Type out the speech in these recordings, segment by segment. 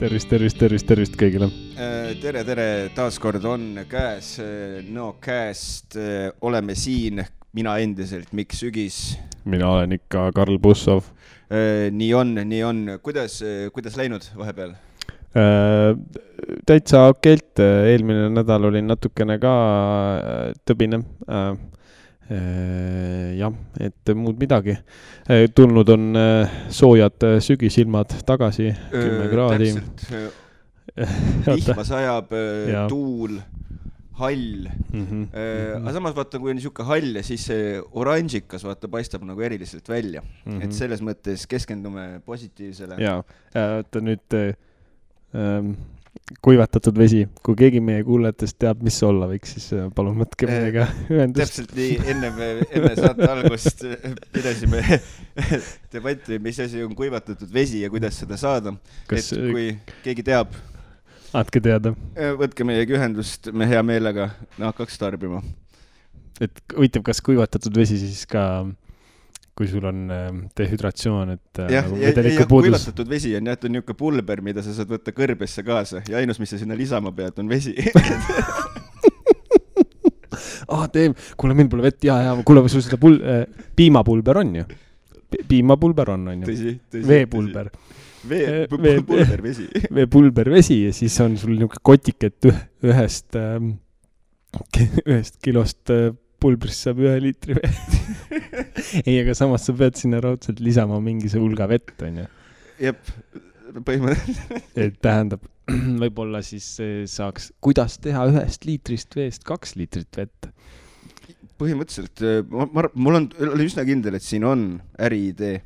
Tervist kõigile. Tere, taaskord on käes Nõokääst, oleme siin, mina endiselt Mikk Sügis. Mina olen ikka Karl Bussov. Nii on. Kuidas läinud vahepeal? Täitsa okeilt, eelmine nädal oli natukene ka tõbine. Jah, et muud midagi. Tulnud on soojad sügisilmad tagasi, 10 kraadi. Vihma sajab, tuul, hall. Aga samas vaata, kui on niisugune hall ja siis see oranžikas vaata paistab nagu eriliselt välja. Et selles mõttes keskendume positiivsele. Jaa, ta nüüd kuivatatud vesi. Kui keegi meie kuulajatest teab, mis olla võiks, siis palun võtke meiega ühendust. Täpselt nii, enne saate algust pidasime debatti, mis asi on kuivatatud vesi ja kuidas seda saada. Et kui keegi teab, andke teada. Võtke meiega ühendust, me hea meelega hakkaks tarbima. Et huvitav, kas kuivatatud vesi siis ka, kui sul on dehydratsioon, et nagu vedeliku puudus. Kuivatatud vesi on jäetud niisugune pulber, mida sa saad võtta kõrbesse kaasa ja ainus, mis sa sinna lisama pead, on vesi. Kuule, meil pole vett, kuule, sul seda piimapulber on ju? Piimapulber on ju? Tõsi. Veepulber. Veepulber vesi. Veepulber vesi ja siis on sul niisugune kotiket ühest kilost pulbrist saab 1 liitri vett. Ei, aga samas sa pead sinna raudselt lisama mingise hulga vett, on ju? Jep, põhimõtteliselt. Et tähendab, võib-olla siis saaks, kuidas teha 1 liitrist veest 2 liitrit vett? Põhimõtteliselt, mul oli üsna kindel, et siin on äriidee,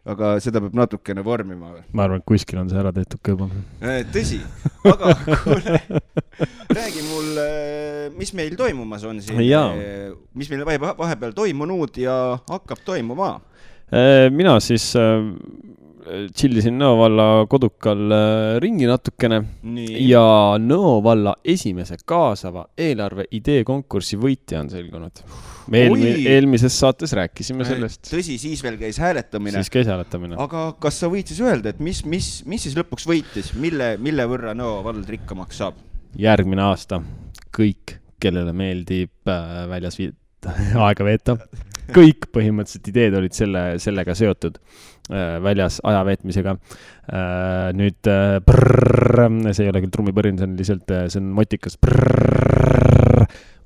aga seda peab natukene vormima. Ma arvan, et kuskil on see ära tehtud kõiba. Tõsi, aga kuule, räägi mul, mis meil toimumas on siin, mis meil vahepeal toimunud ja hakkab toimuma? Mina siis chillisin Nõo valla kodukal ringi natukene. Ja Nõo valla esimese kaasava eelarve idee konkursi võitja on selgunud. Me eelmises saates rääkisime sellest. Tõsi, siis veel käis hääletamine. Aga kas sa võid siis öelda, et mis siis lõpuks võitis? Mille võrra Nõo vald rikkamaks saab? Järgmine aasta kõik, kellele meeldib väljas aega veeta. Kõik põhimõtteliselt ideed olid sellega seotud väljas aja veetmisega. Nüüd see ei ole küll trummipõrin, see on motikas.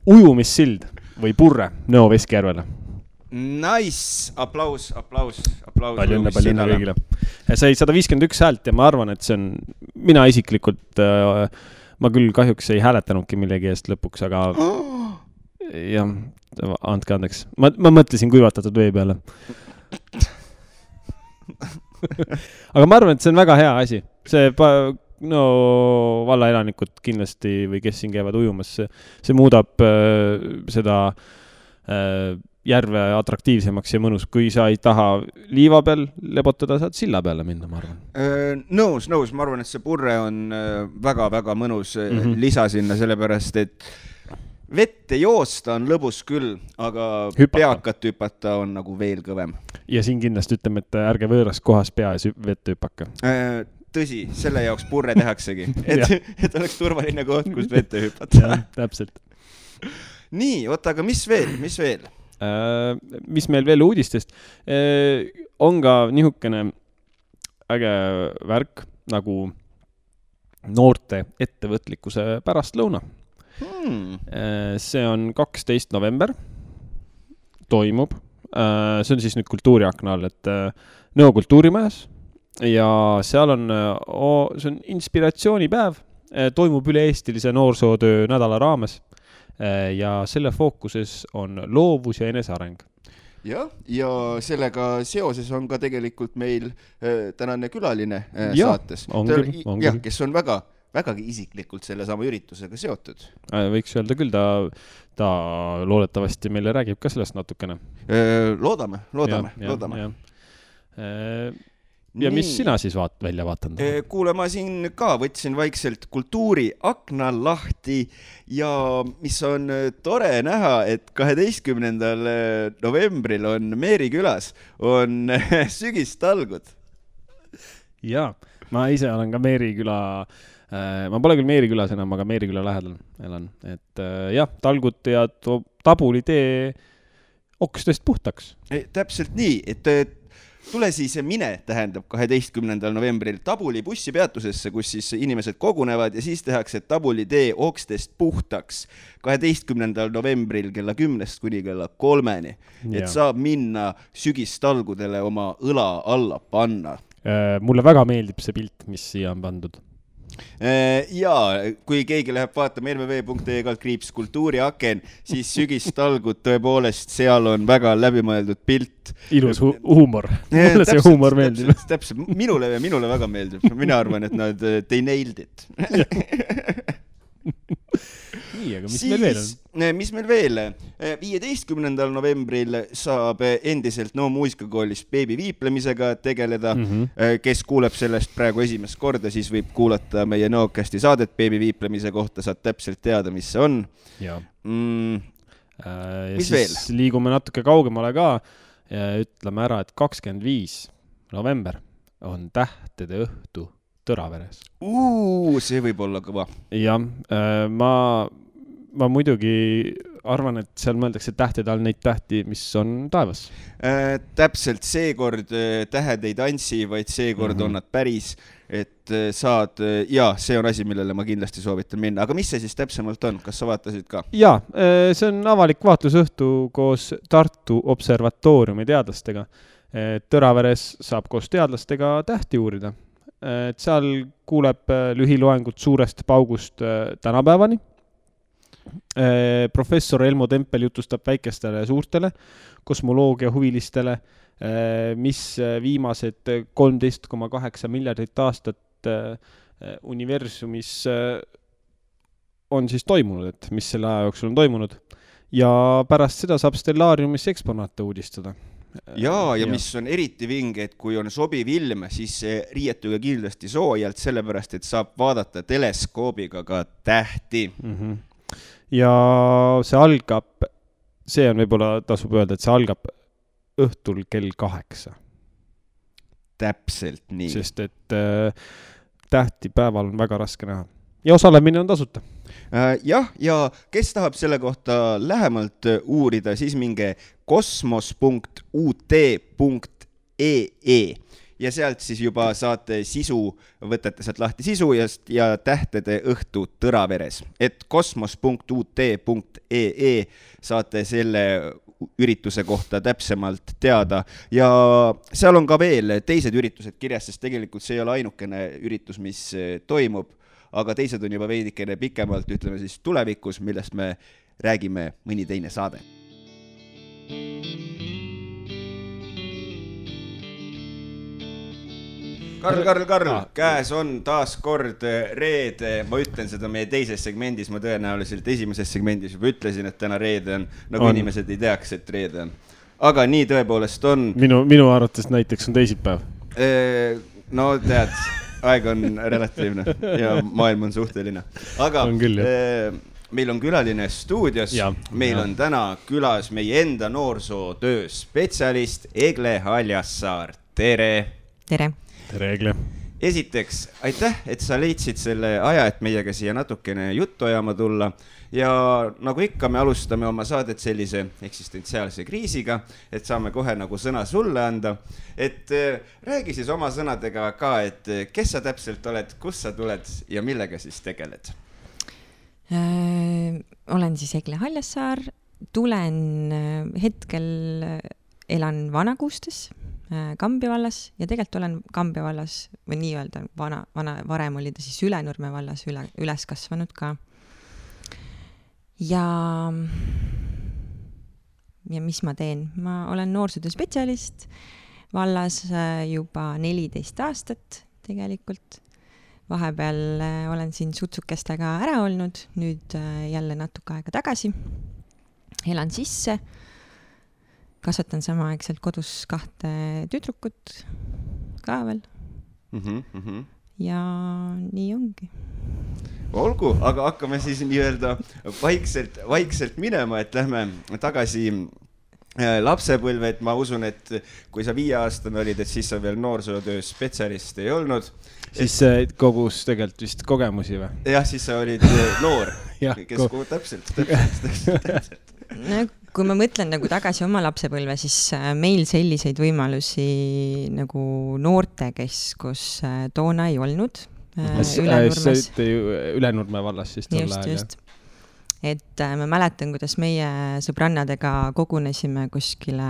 Ujumissild või purre Nõo Veskjärvele. Nice! Aplaus. Palju õnne kõigile. Sai 151 häält ja ma arvan, et see on, mina isiklikult, ma küll kahjuks ei hääletanudki millegi eest lõpuks, aga jah, andke andeks. Ma mõtlesin kuivatatud vee peale. Aga ma arvan, et see on väga hea asi. See valla elanikud kindlasti või kes siin käivad ujumas, see muudab seda järve atraktiivsemaks ja mõnus. Kui sa ei taha liiva peal lebotada, saad silla peale minna, ma arvan. Nõus. Ma arvan, et see purre on väga-väga mõnus lisa sinna, sellepärast, et vette joosta on lõbus küll, aga peakat hüpata on nagu veel kõvem. Ja siin kindlasti ütleme, et ärge võõras kohas pea ja vette hüpaka. Tõsi, selle jaoks purre tehaksegi, et oleks turvaline koht, kus vette hüpata. Ja, täpselt. Nii, oota, aga mis veel? Mis meil veel uudistest? On ka nihukene äge värk nagu noorte ettevõtlikkuse pärastlõuna. See on 12. november, toimub. See on siis nüüd kultuuriakna all, et Nõo kultuurimajas ja seal on, see on inspiratsioonipäev, toimub üle-eestilise noorsootöö nädala raames ja selle fookuses on loovus ja eneseareng. Ja sellega seoses on ka tegelikult meil tänane külaline saates. Kes on vägagi isiklikult selle sama üritusega seotud. Võiks öelda küll, ta loodetavasti meile räägib ka sellest natukene. Loodame. Ja mis sina siis välja vaatanud? Kuule, ma siin ka võtsin vaikselt kultuuri akna lahti ja mis on tore näha, et 12. novembril on Meeri külas on sügistalgud. Jaa, ma ise olen ka Meeriküla, ma pole küll Meerikülas enam, aga Meeriküla lähedal elan. Et jah, talgud ja tabuli tee okstest puhtaks. Täpselt nii, et tule siis mine, tähendab 12. novembril Tabuli bussipeatusesse, kus siis inimesed kogunevad ja siis tehakse Tabuli tee okstest puhtaks 12. novembril kella 10 kuni kella 3. Et saab minna sügistalgudele oma õla alla panna. Mulle väga meeldib see pilt, mis siia on pandud. Jaa, kui keegi läheb vaatama lvv.ee/kultuuriaken, siis sügistalgud tõepoolest, seal on väga läbimõeldud pilt. Ilus huumor. Mulle see huumor meeldib. Täpselt, minule väga meeldib. Mina arvan, et they nailed it. Nii, aga mis meil veel on? Mis meil veel? 15. novembril saab endiselt No muusikakoolis beebi viiplemisega tegeleda. Kes kuuleb sellest praegu esimest korda, siis võib kuulata meie Noocasti saadet beebi viiplemise kohta, saad täpselt teada, mis see on. Ja. Mis veel? Liigume natuke kaugemale ka ja ütleme ära, et 25. november on tähtede õhtu Tõraveres. See võib olla kõva. Jah, ma muidugi arvan, et seal mõeldakse tähtede all neid tähti, mis on taevas. Täpselt seekord tähed ei tantsi, vaid seekord on nad päris, et saad, ja see on asi, millele ma kindlasti soovitan minna. Aga mis see siis täpsemalt on? Kas sa vaatasid ka? Jaa, see on avalik vaatlusõhtu koos Tartu observatooriumi teadlastega. Tõraveres saab koos teadlastega tähti uurida. Et seal kuuleb lühiloengut suurest paugust tänapäevani. Professor Elmo Tempel jutustab väikestele ja suurtele kosmoloogia huvilistele, mis viimased 13,8 miljardit aastat universumis on siis toimunud, et mis selle aja jooksul on toimunud. Ja pärast seda saab stellaariumis eksponaate uudistada. Ja mis on eriti vinge, et kui on sobiv ilm, siis riietuge kindlasti soojalt, sellepärast, et saab vaadata teleskoobiga ka tähti. Ja see algab, see on võib-olla tasub öelda, et see algab õhtul kell 8. Täpselt nii. Sest et tähti päeval on väga raske näha. Ja osalemine on tasuta. Jah, ja kes tahab selle kohta lähemalt uurida, siis minge kosmos.ut.ee ja sealt siis juba saate sisu, võtate sealt lahti sisu ja tähtede õhtu Tõraveres. Et kosmos.ut.ee saate selle ürituse kohta täpsemalt teada ja seal on ka veel teised üritused kirjas, sest tegelikult see ei ole ainukene üritus, mis toimub, aga teised on juba veidikene pikemalt, ütleme siis tulevikus, millest me räägime mõni teine saade. Karl, käes on taas kord reede, ma ütlen seda meie teises segmendis, ma tõenäoliselt esimeses segmendis juba ütlesin, et täna reede on, nagu inimesed ei teaks, et reede on. Aga nii tõepoolest on. Minu arvates näiteks on teisipäev. No tead, aeg on relatiivne ja maailm on suhteline. Aga meil on külaline stuudios, meil on täna külas meie enda noorsootöö spetsialist Egle Haljassaar. Tere! Tere! Tere, Egle! Esiteks, aitäh, et sa leidsid selle aja, et meiega siia natukene juttu ajama tulla. Ja nagu ikka, me alustame oma saadet sellise eksistentsiaalse kriisiga, et saame kohe nagu sõna sulle anda. Et räägi siis oma sõnadega ka, et kes sa täpselt oled, kus sa tuled ja millega siis tegeled? Olen siis Egle Haljassaar, tulen hetkel, elan Vanakuustes, Kambja vallas ja tegelikult olen Kambja vallas või nii öelda varem oli ta siis Ülenurme vallas üles kasvanud ka. Ja mis ma teen? Ma olen noorsootöö spetsialist vallas juba 14 aastat tegelikult. Vahepeal olen siin sutsukestega ära olnud, nüüd jälle natuke aega tagasi. Elan sisse. Kasvatan samaaegselt kodus 2 tüdrukut ka veel. Ja nii ongi. Olgu, aga hakkame siis nii-öelda vaikselt minema, et lähme tagasi lapsepõlve, et ma usun, et kui sa 5-aastane olid, et siis sa veel noorsootöö spetsialist ei olnud. siis kogus tegelikult vist kogemusi või? Jah, siis sa olid noor, kes täpselt. No, kui ma mõtlen nagu tagasi oma lapsepõlve, siis meil selliseid võimalusi nagu noortekeskus toona ei olnud. Ülenurme vallas siis tol ajal. Just. Et ma mäletan, kuidas meie sõbrannadega kogunesime kuskile,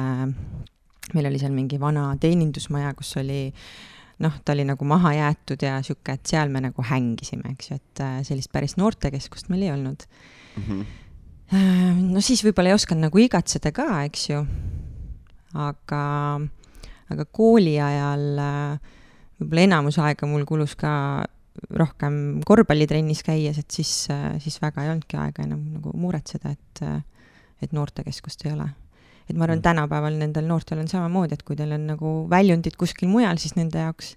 meil oli seal mingi vana teenindusmaja, kus oli, ta oli nagu maha jäetud ja siuke, et seal me nagu hängisime, eks ju, et sellist päris noortekeskust meil ei olnud. No siis võib-olla ei osanud nagu igatseda ka, eks ju, aga kooli ajal võib-olla enamus aega mul kulus ka rohkem korvpallitrennis käies, et siis väga ei olnudki aega enam nagu muretseda, et noortekeskust ei ole. Et ma arvan, tänapäeval nendel noortel on samamoodi, et kui teil on nagu väljundid kuskil mujal, siis nende jaoks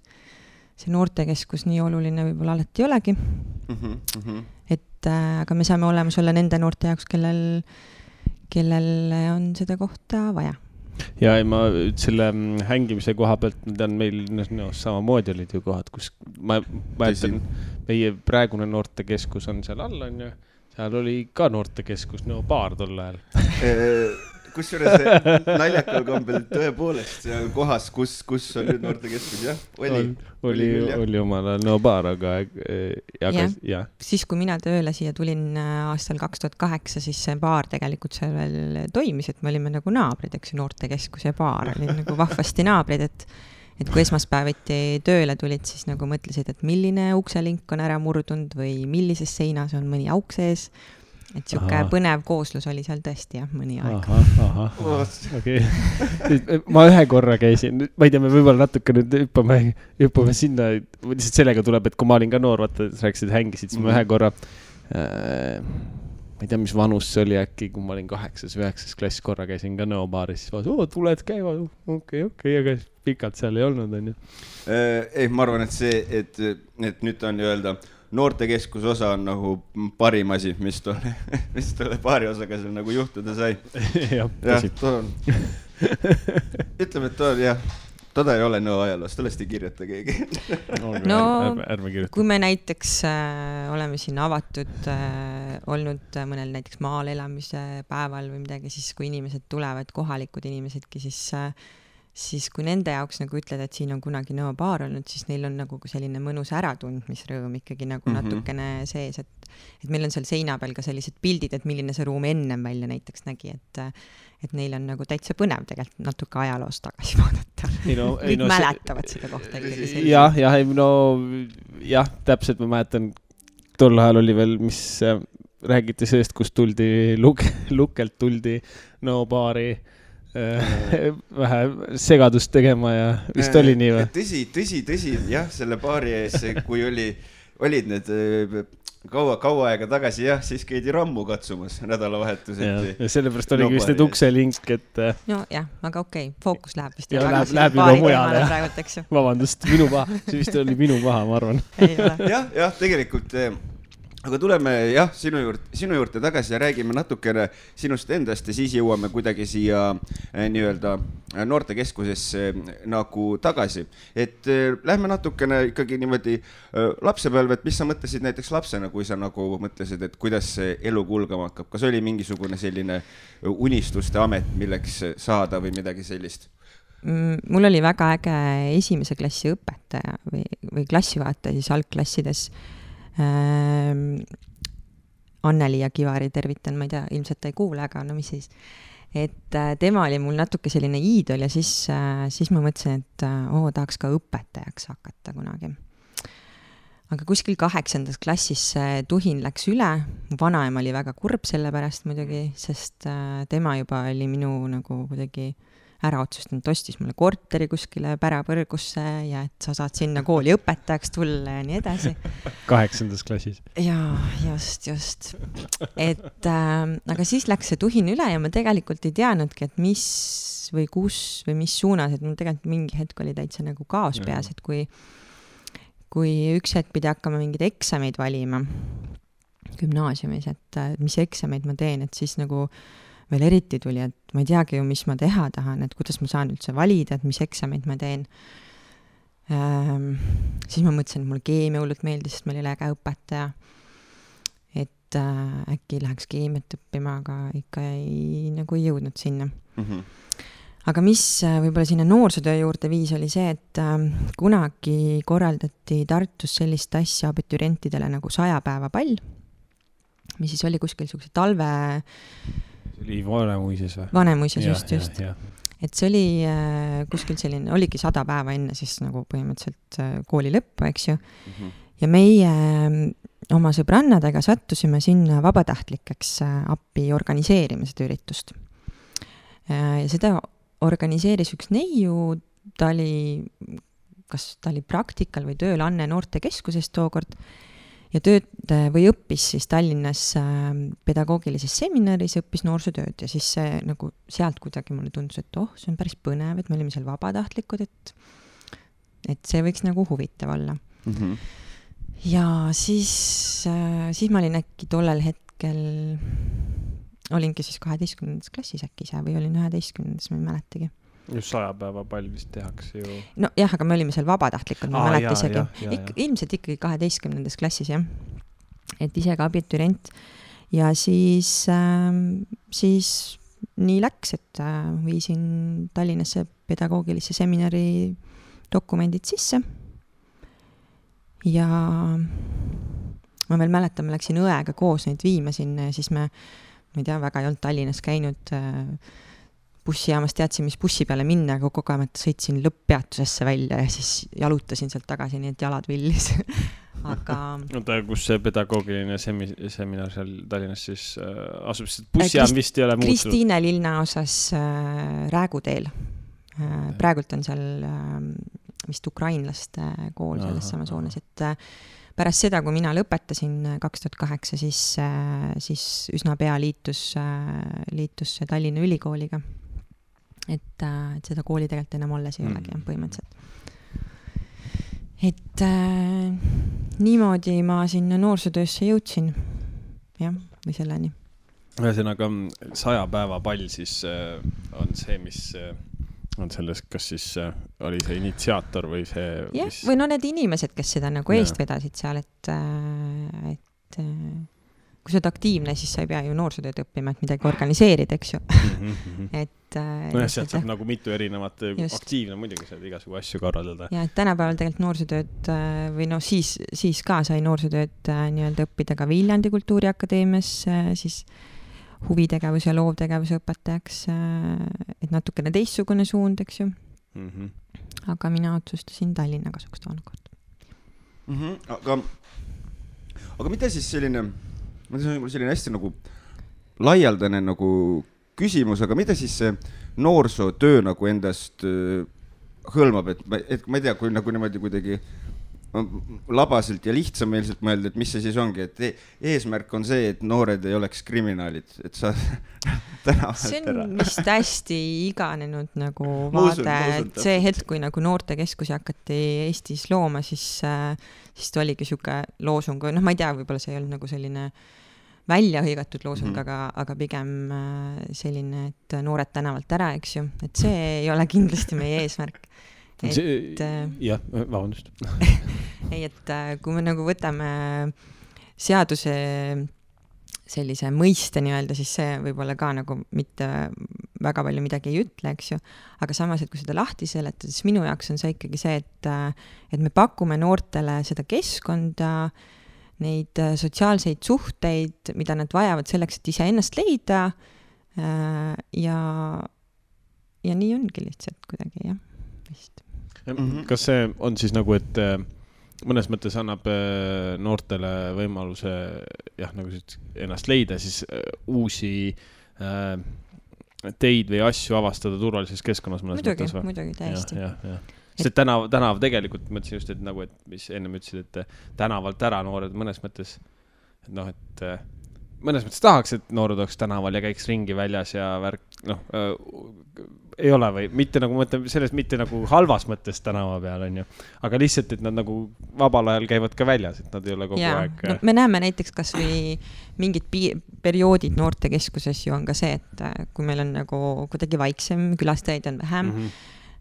see noortekeskus nii oluline võib-olla alati ei olegi. Et aga me saame olemas olla nende noorte jaoks, kellel on seda kohta vaja. Ja ma selle hängimise koha pealt, on meil samamoodi olid ju kohad, kus ma ütlen, meie praegune noortekeskus on seal all, on ju, seal oli ka noortekeskus, baar tol ajal. Kusjuures naljakal kombel tõepoolest seal kohas, kus on nüüd noortekeskus, jah? Oli omal ajal baar, aga ja. Siis, kui mina tööle siia tulin aastal 2008, siis see baar tegelikult seal veel toimis, et me olime nagu naabrid, eks noortekeskus ja baar oli nagu vahvasti naabrid, et kui esmaspäeviti tööle tulid, siis nagu mõtlesid, et milline ukselink on ära murdunud või millises seinas on mõni auk sees. Et siuke põnev kooslus oli seal tõesti, jah, mõni aeg. Okay. Ma ühe korra käisin, ma ei tea, me võib-olla natuke nüüd hüppame sinna, lihtsalt sellega tuleb, et kui ma olin ka noor, vaata, rääkisid, hängisid, siis ma ühe korra, ma ei tea, mis vanus see oli äkki, kui ma olin 8. või 9. klass korra käisin ka nõobaaris, siis tuled käiva, okei, aga pikalt seal ei olnud, on ju. Ei, ma arvan, et see, et nüüd on öelda, noortekeskus osa on nagu parim asi, mis tolle paari osaga seal nagu juhtuda sai. Jah, ütleme, et toda ei ole nõu ajaloos, tollest ei kirjuta keegi. No, kui me näiteks oleme siin avatud olnud mõnel näiteks maal elamise päeval või midagi, siis kui inimesed tulevad, kohalikud inimesedki, siis kui nende jaoks nagu ütled, et siin on kunagi nõobaar olnud, siis neil on nagu selline mõnus äratundmisrõõm ikkagi nagu natukene sees, et meil on seal seina peal ka sellised pildid, et milline see ruum ennem välja näiteks nägi, et neil on nagu täitsa põnev tegelikult natuke ajaloost tagasi vaadata. Kõik mäletavad seda kohta ikkagi. Jah, täpselt ma mäletan, tol ajal oli veel, mis räägiti sellest, kus tuldi lukelt tuldi nõobaari vähe segadust tegema ja vist oli nii või? Tõsi, jah, selle baari ees, kui olid need kaua aega tagasi, jah, siis käidi rammu katsumas nädalavahetuseti. Ja sellepärast oligi vist need ukselink, et... No jah, aga okei, fookus läheb vist. Läheb juba mujale. Vabandust, minu paha. See vist oli minu paha, ma arvan. Jah, tegelikult... Aga tuleme sinu juurde tagasi ja räägime natukene sinust endast ja siis jõuame kuidagi siia nii-öelda noortekeskusesse nagu tagasi. Et lähme natukene ikkagi niimoodi lapsepõlve, et mis sa mõtlesid näiteks lapsena, kui sa nagu mõtlesid, et kuidas see elu kulgama hakkab? Kas oli mingisugune selline unistuste amet, milleks saada või midagi sellist? Mul oli väga äge esimese klassi õpetaja või klassivaataja siis algklassides. Anneli ja Kivari tervitan, ma ei tea, ilmselt ta ei kuule, aga no mis siis. Et tema oli mul natuke selline iidol ja siis ma mõtlesin, et tahaks ka õpetajaks hakata kunagi. Aga kuskil 8. klassis tuhin läks üle. Mu vanaema oli väga kurb selle pärast muidugi, sest tema juba oli minu nagu kuidagi ära otsustanud, ostis mulle korteri kuskile Pärapõrgusse ja et sa saad sinna kooli õpetajaks tulla ja nii edasi. 8. klassis. Jaa, just. Et, aga siis läks see tuhin üle ja ma tegelikult ei teadnudki, et mis või kus või mis suunas, et mul tegelikult mingi hetk oli täitsa nagu kaos peas, et kui üks hetk pidi hakkama mingid eksameid valima gümnaasiumis, et mis eksameid ma teen, et siis nagu veel eriti tuli, et ma ei teagi ju, mis ma teha tahan, et kuidas ma saan üldse valida, et mis eksameid ma teen. Siis ma mõtlesin, et mulle keemia hullult meeldis, sest meil oli äge õpetaja. Et äkki läheks keemiat õppima, aga ikka ei jõudnud sinna. Aga mis võib-olla sinna noorsootöö juurde viis oli see, et kunagi korraldati Tartus sellist asja abiturientidele nagu 100 päeva pall, mis siis oli kuskil selline talve... See oli Vanemuises või? Vanemuises, just. Et see oli kuskil selline, oligi 100 päeva enne siis nagu põhimõtteliselt kooli lõppu, eks ju. Ja meie oma sõbrannadega sattusime sinna vabatahtlikeks appi organiseerima seda üritust. Ja seda organiseeris üks neiu, ta oli praktikal või tööl Anne noortekeskusest tookord ja õppis siis Tallinnas pedagoogilises seminaris, õppis noorsootööd ja siis see nagu sealt kuidagi mulle tundus, et see on päris põnev, et me olime seal vabatahtlikud, et see võiks nagu huvitav olla. Ja siis ma olin äkki tollel hetkel, olingi siis 12. klassis äkki ise või olin 11. ma ei mäletagi. Just 100 päeva pall vist tehakse ju. No jah, aga me olime seal vabatahtlikud, ma mäleta isegi. Ilmselt ikkagi 12. klassis, jah. Et ise ka abiturient. Ja siis nii läks, et viisin Tallinnasse pedagoogilisse seminari dokumendid sisse. Ja ma veel mäletan, ma läksin õega koos neid viima sinna ja siis ma ei tea, väga ei olnud Tallinnas käinud bussijaamas, teadsin, mis bussi peale minna, aga kogemata sõitsin lõpppeatusesse välja ja siis jalutasin sealt tagasi, nii et jalad villis. Aga... Oota, kus see pedagoogiline seminar seal Tallinnas siis asub, sest bussijaam vist ei ole muutunud? Kristiine linnaosas Rääguteel. Praegult on seal vist ukrainlaste kool selles samas hoones, et pärast seda, kui mina lõpetasin 2008, siis üsna pea liitus Tallinna Ülikooliga. Et seda kooli tegelikult enam alles ei olegi põhimõtteliselt. Et niimoodi ma sinna noorsootöösse jõudsin. Jah, või selleni. Ühesõnaga 100 päeva pall siis on see, mis... on selles, kas siis oli see initsiaator või see... Jah, või need inimesed, kes seda nagu eest vedasid seal, et kui sa oled aktiivne, siis sa ei pea ju noorsootööd õppima, et midagi organiseerida, eks ju. Sealt saab nagu mitu erinevat aktiivne, muidugi saab igasugu asju korraldada. Ja et tänapäeval tegelikult noorsootööd või siis ka sai noorsootööd nii-öelda õppida ka Viljandi Kultuuriakadeemias, siis huvitegevus ja loovtegevuse õpetajaks, et natukene teistsugune suund, eks ju. Aga mina otsustasin Tallinna kasuks toonakord. Aga mida siis selline hästi nagu laialdane nagu küsimus, aga mida siis see noorsootöö nagu endast hõlmab, et ma ei tea, kui nagu niimoodi kuidagi labaselt ja lihtsameelselt mõelda, et mis see siis ongi, et eesmärk on see, et noored ei oleks kriminaalid, et sa see on vist hästi iganenud nagu vaade, et see hetk, kui nagu noortekeskusi hakati Eestis looma, siis ta oligi siuke loosung, ma ei tea, võib-olla see ei olnud nagu selline välja hõigatud loosung, aga pigem selline, et noored tänavalt ära, eks ju, et see ei ole kindlasti meie eesmärk. Jah, vabandust. Ei, et kui me nagu võtame seaduse sellise mõiste nii-öelda, siis see võib-olla ka nagu mitte väga palju midagi ei ütle, eks ju. Aga samas, et kui seda lahti seletada, siis minu jaoks on see ikkagi see, et me pakume noortele seda keskkonda, neid sotsiaalseid suhteid, mida nad vajavad selleks, et ise ennast leida ja nii ongi lihtsalt kuidagi, jah, vist. Kas see on siis nagu, et mõnes mõttes annab noortele võimaluse nagu ennast leida, siis uusi teid või asju avastada turvalises keskkonnas mõnes mõttes? Muidugi, täiesti. Sest tänav tegelikult, mõtlesin just, et nagu, et mis enne ütlesid, et tänavalt ära noored mõnes mõttes, et mõnes mõttes tahaks, et noored oleks tänaval ja käiks ringi väljas ja värk, ei ole või mitte nagu mõtleme sellest mitte nagu halvas mõttes tänava peal on ju, aga lihtsalt, et nad nagu vabal ajal käivad ka väljas, et nad ei ole kogu aeg. No, me näeme näiteks kas või mingid perioodid noortekeskuses ju on ka see, et kui meil on nagu kuidagi vaiksem, külastajaid on vähem,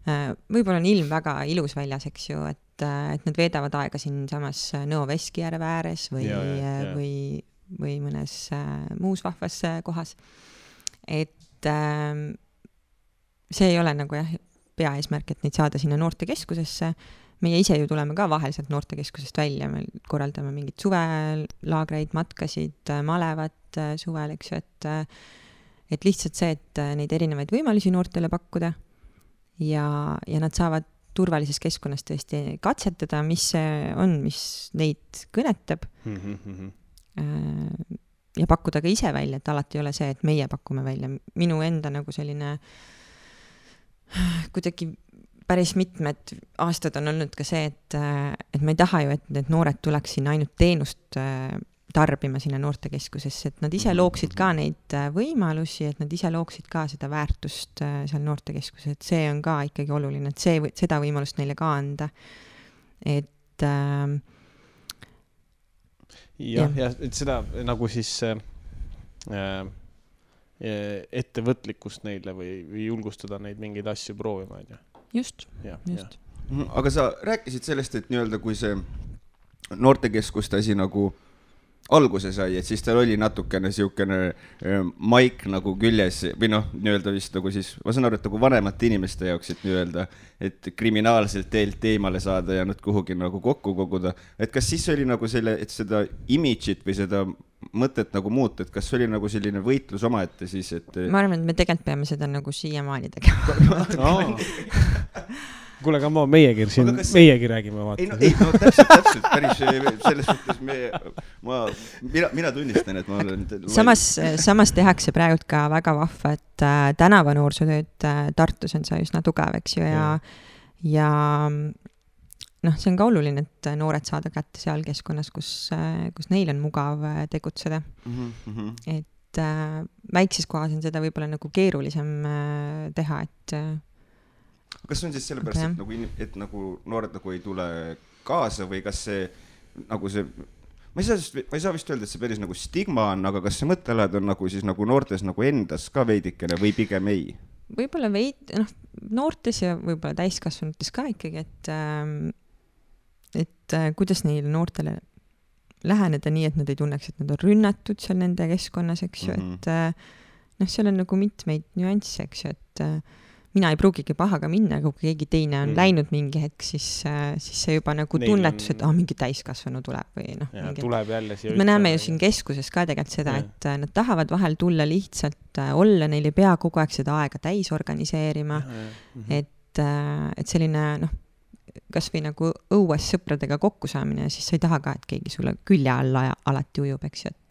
võib-olla on ilm väga ilus väljas, eks ju, et nad veedavad aega siin samas Nõo Veskijärve ääres või mõnes muus vahvas kohas. Et see ei ole nagu jah, peaeesmärk, et neid saada sinna noortekeskusesse. Meie ise ju tuleme ka vahel sealt noortekeskusest välja, me korraldame mingid suvelaagreid, matkasid, malevat suvel, eks ju, et lihtsalt see, et neid erinevaid võimalusi noortele pakkuda ja nad saavad turvalises keskkonnas tõesti katsetada, mis see on, mis neid kõnetab ja pakkuda ka ise välja, et alati ei ole see, et meie pakume välja. Minu enda nagu selline kuidagi päris mitmed aastad on olnud ka see, et ma ei taha ju, et need noored tuleks sinna ainult teenust tarbima sinna noortekeskusesse, et nad ise looksid ka neid võimalusi, et nad ise looksid ka seda väärtust seal noortekeskuses, et see on ka ikkagi oluline, et seda võimalust neile ka anda. Et ja et seda nagu siis ettevõtlikkust neile või julgustada neid mingeid asju proovima, on ju. Just. Aga sa rääkisid sellest, et nii-öelda kui see noortekeskust asi nagu alguse sai, et siis tal oli natukene siukene maik nagu küljes või noh, nii-öelda vist nagu siis, ma saan aru, et nagu vanemate inimeste jaoks, et nii-öelda, et kriminaalselt teelt eemale saada ja nad kuhugi nagu kokku koguda. Et kas siis oli nagu selle, et seda imidžit või seda mõtet nagu muuta, et kas oli nagu selline võitlus omaette siis, et ma arvan, et me tegelikult peame seda nagu siiamaani tegema. Kuule, aga meiegi räägime vaata. Ei, täpselt, päris selles suhtes mina tunnistan, et ma olen samas tehakse praegu ka väga vahva, et tänava noorsootööd Tartus on see üsna tugev, eks ju, ja noh, see on ka oluline, et noored saada kätte seal keskkonnas, kus neil on mugav tegutseda. Et väikses kohas on seda võib-olla nagu keerulisem teha, et kas on siis sellepärast, et nagu noored nagu ei tule kaasa või kas see nagu see, ma ei saa vist öelda, et see päris nagu stigma on, aga kas see mõttelad on nagu siis nagu noortes nagu endas ka veidikene või pigem ei? Võib-olla noortes ja võib-olla täiskasvanutes ka ikkagi, et kuidas neile noortele läheneda nii, et nad ei tunneks, et nad on rünnatud seal nende keskkonnas, eks ju, et seal on nagu mitmeid nüansse, eks ju, et mina ei pruugigi pahaga minna, kui keegi teine on läinud mingi hetk, siis see juba nagu tunnetus, et mingi täiskasvanu tuleb või tuleb jälle siia. Me näeme ju siin keskuses ka tegelikult seda, et nad tahavad vahel tulla lihtsalt olla, neil ei pea kogu aeg seda aega täis organiseerima, et selline kas või nagu õues sõpradega kokku saamine, siis sa ei taha ka, et keegi sulle külje alla alati ujub, eks ju, et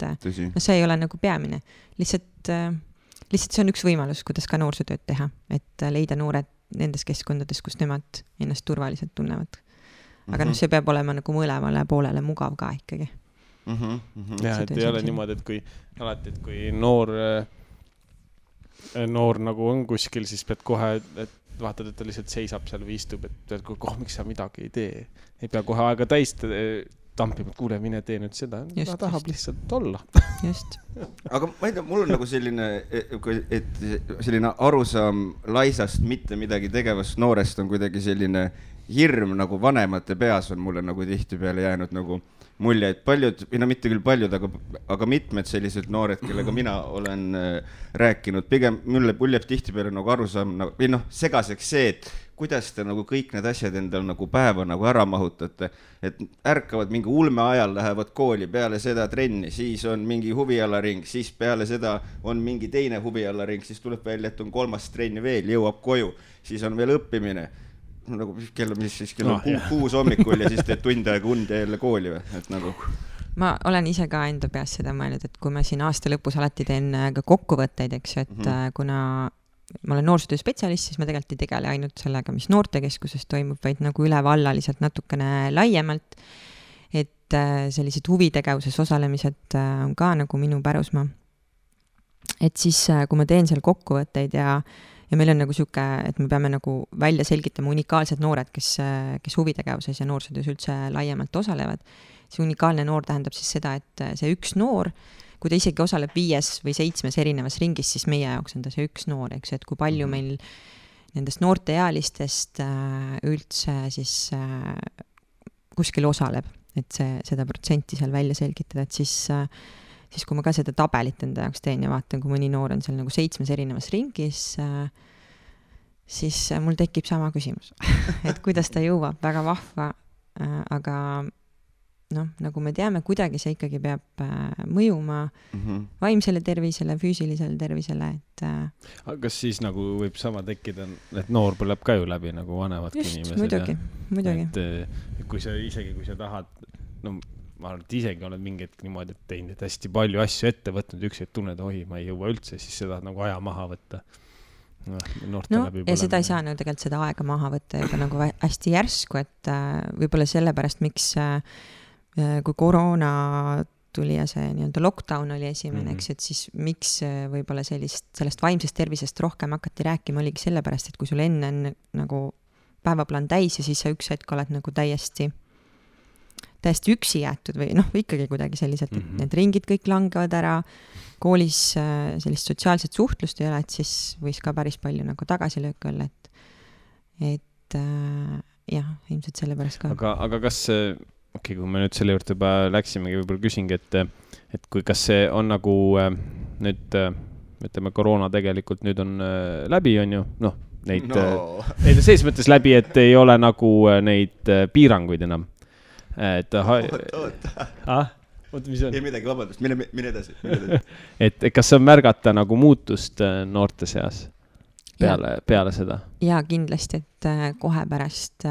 see ei ole nagu peamine. Lihtsalt see on üks võimalus, kuidas ka noorsootööd teha, et leida noored nendes keskkondades, kus nemad ennast turvaliselt tunnevad. Aga see peab olema nagu mõlemale poolele mugav ka ikkagi. Ja, et ei ole niimoodi, et kui noor nagu on kuskil, siis pead kohe, et vaatad, et ta lihtsalt seisab seal või istub, et miks sa midagi ei tee. Ei pea kohe aega täis tampima, et kuule, mine tee nüüd seda. Ta tahab lihtsalt olla. Just. Aga ma ei tea, mul on nagu selline arusaam laisast mitte midagi tegevast noorest on kuidagi selline hirm nagu vanemate peas on mulle nagu tihtipeale jäänud nagu mulje, et paljud, mitte küll paljud, aga mitmed sellised noored, kellega mina olen rääkinud, pigem mulle jääb tihtipeale nagu arusaam või segaseks see, et kuidas te nagu kõik need asjad endal nagu päeva nagu ära mahutate, et ärkavad mingi ulme ajal, lähevad kooli, peale seda trenni, siis on mingi huvialaring, siis peale seda on mingi teine huvialaring, siis tuleb välja, et on 3. trenni veel, jõuab koju, siis on veel õppimine. Nagu kell on 6 hommikul ja siis teed tund aega und ja jälle kooli või, et nagu ma olen ise ka enda peas seda mõelnud, et kui ma siin aasta lõpus alati teen ka kokkuvõtteid, eks ju, et kuna ma olen noorsootöö spetsialist, siis ma tegelikult ei tegele ainult sellega, mis noortekeskuses toimub, vaid nagu ülevallaliselt natukene laiemalt, et sellised huvitegevuses osalemised on ka nagu minu pärusmaa. Et siis, kui ma teen seal kokkuvõtteid ja meil on nagu siuke, et me peame nagu välja selgitama unikaalsed noored, kes huvitegevuses ja noorsootöös üldse laiemalt osalevad. See unikaalne noor tähendab siis seda, et see üks noor, kui ta isegi osaleb 5 või 7 erinevas ringis, siis meie jaoks on ta see üks noor, eks, et kui palju meil nendest noorteealistest üldse siis kuskil osaleb, et seda protsenti seal välja selgitada, et siis kui ma ka seda tabelit enda jaoks teen ja vaatan, kui mõni noor on seal nagu 7 erinevas ringis, siis mul tekib sama küsimus, et kuidas ta jõuab, väga vahva, aga nagu me teame, kuidagi see ikkagi peab mõjuma vaimsele tervisele, füüsilisele tervisele, et kas siis nagu võib sama tekkida, et noor põleb ka ju läbi nagu vanemadki inimesed? Muidugi. Et kui sa tahad, ma arvan, et isegi oled mingi hetk niimoodi teinud, et hästi palju asju ette võtnud, üks hetk tunned, ma ei jõua üldse, siis seda nagu aja maha võtta. Ja seda ei saa tegelikult seda aega maha võtta juba nagu hästi järsku, et võib-olla sellepärast, miks kui koroona tuli ja see nii-öelda lockdown oli esimene, eks, et siis miks võib-olla sellest vaimsest tervisest rohkem hakati rääkima, oligi sellepärast, et kui sul enne on nagu päevaplaan täis ja siis sa üks hetk oled nagu täiesti üksi jäetud või ikkagi kuidagi selliselt, et need ringid kõik langevad ära, koolis sellist sotsiaalset suhtlust ei ole, et siis võis ka päris palju nagu tagasilöök olla, et jah, ilmselt sellepärast ka. Aga kas kui me nüüd selle juurde juba läksimegi, võib-olla küsingi, et kas see on nagu nüüd, ütleme, koroona tegelikult nüüd on läbi, on ju, neid selles mõttes läbi, et ei ole nagu neid piiranguid enam. Oota, mis on? Ei midagi, vabandust, mine edasi. Et kas on märgata nagu muutust noorte seas peale seda? Jaa, kindlasti, et kohe pärast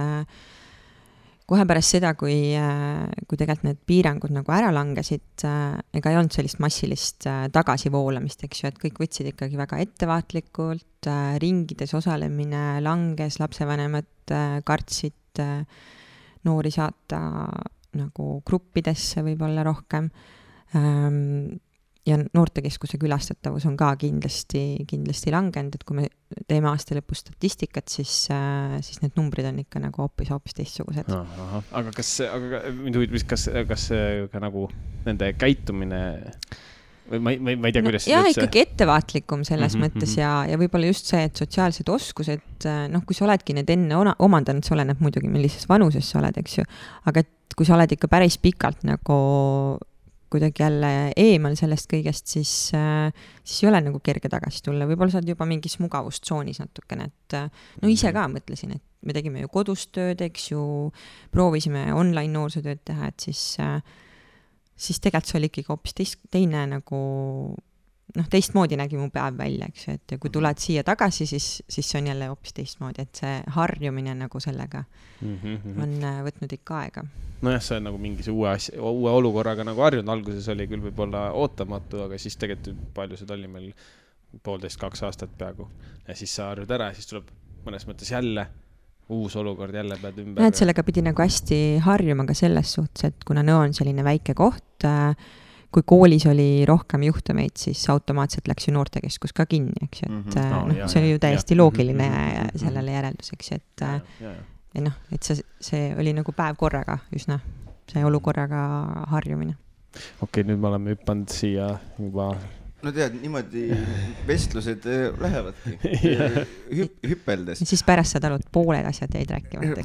seda, kui tegelikult need piirangud nagu ära langesid, ega ei olnud sellist massilist tagasivoolamist, eks ju, et kõik võtsid ikkagi väga ettevaatlikult, ringides osalemine langes, lapsevanemad kartsid noori saata nagu gruppidesse võib-olla rohkem. Ja noortekeskuse külastatavus on ka kindlasti langenud, et kui me teeme aasta lõpus statistikat, siis need numbrid on ikka nagu hoopis teistsugused. Aga kas ka nagu nende käitumine või ma ei tea, kuidas jah, ikkagi ettevaatlikum selles mõttes ja võib-olla just see, et sotsiaalsed oskused, kui sa oledki need enne omandanud, see oleneb muidugi, millises vanuses sa oled, eks ju, aga et kui sa oled ikka päris pikalt nagu kuidagi jälle eemal sellest kõigest, siis ei ole nagu kerge tagasi tulla. Võib-olla sa oled juba mingis mugavustsoonis natukene, et ise ka mõtlesin, et me tegime ju kodust tööd, eks ju, proovisime online noorsootööd teha, et siis tegelikult see oli ikkagi hoopis teine nagu, teistmoodi nägi mu päev välja, eks ju, et kui tuled siia tagasi, siis see on jälle hoopis teistmoodi, et see harjumine nagu sellega on võtnud ikka aega. Nojah, see on nagu mingise uue olukorraga nagu harjunud, alguses oli küll võib-olla ootamatu, aga siis tegelikult palju seda oli meil 1,5-2 aastat peaaegu ja siis sa harjud ära ja siis tuleb mõnes mõttes jälle uus olukord, jälle pead ümber. Et sellega pidi nagu hästi harjuma ka selles suhtes, et kuna Nõo on selline väike koht, kui koolis oli rohkem juhtumeid, siis automaatselt läks ju noortekeskus ka kinni, eks ju, et see oli ju täiesti loogiline sellele järelduseks, et see oli nagu päev korraga üsna, see olukorraga harjumine. Okei, nüüd me oleme hüppanud siia juba... No tead, niimoodi vestlused lähevadki hüppeldes. Siis pärast saad aru, et pooled asjad jäid rääkimata.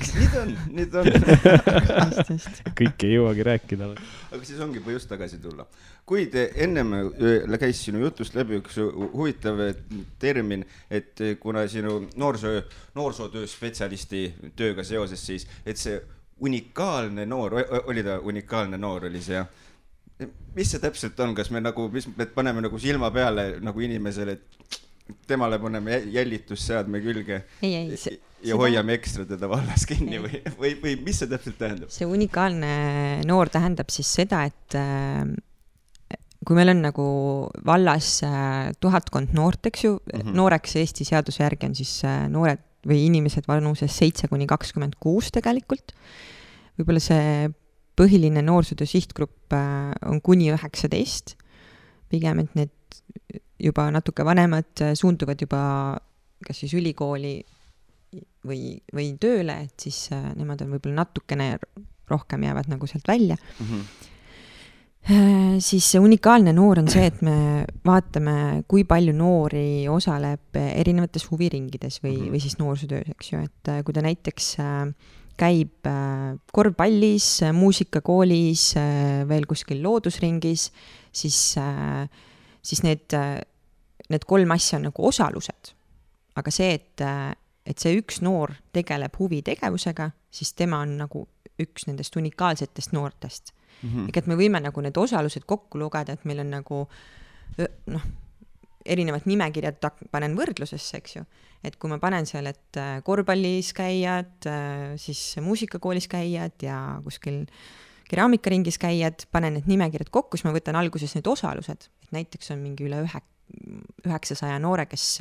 Nüüd on. Kõik ei jõuagi rääkida. Aga siis ongi põhjust tagasi tulla. Kuid ennem käis sinu jutust läbi üks huvitav termin, et kuna sinu noorsootöö spetsialisti tööga seoses siis, et see unikaalne noor, oli ta unikaalne noor, oli see jah? Mis see täpselt on, kas me paneme nagu silma peale nagu inimesele, et temale paneme jälitusseadme külge ja hoiame ekstra teda vallas kinni või mis see täpselt tähendab? See unikaalne noor tähendab siis seda, et kui meil on nagu vallas 1000 noort, eks ju, nooreks Eesti seaduse järgi on siis noored või inimesed vanuses 7-26 tegelikult. Võib-olla see põhiline noorsootöö sihtgrupp on kuni 19, pigem, et need juba natuke vanemad suunduvad juba kas siis ülikooli või tööle, et siis nemad on võib-olla natukene rohkem jäävad nagu sealt välja. Siis see unikaalne noor on see, et me vaatame, kui palju noori osaleb erinevates huviringides või siis noorsootöös, eks ju, et kui ta näiteks käib korvpallis, muusikakoolis, veel kuskil loodusringis, siis need 3 asja on nagu osalused. Aga see, et see üks noor tegeleb huvitegevusega, siis tema on nagu üks nendest unikaalsetest noortest. Et me võime nagu need osalused kokku lugeda, et meil on nagu erinevad nimekirjad panen võrdlusesse, eks ju. Et kui ma panen seal, et korvpallis käijad, siis muusikakoolis käijad ja kuskil keraamikaringis käijad, panen need nimekirjad kokku, siis ma võtan alguses need osalused. Et näiteks on mingi üle 900 noore, kes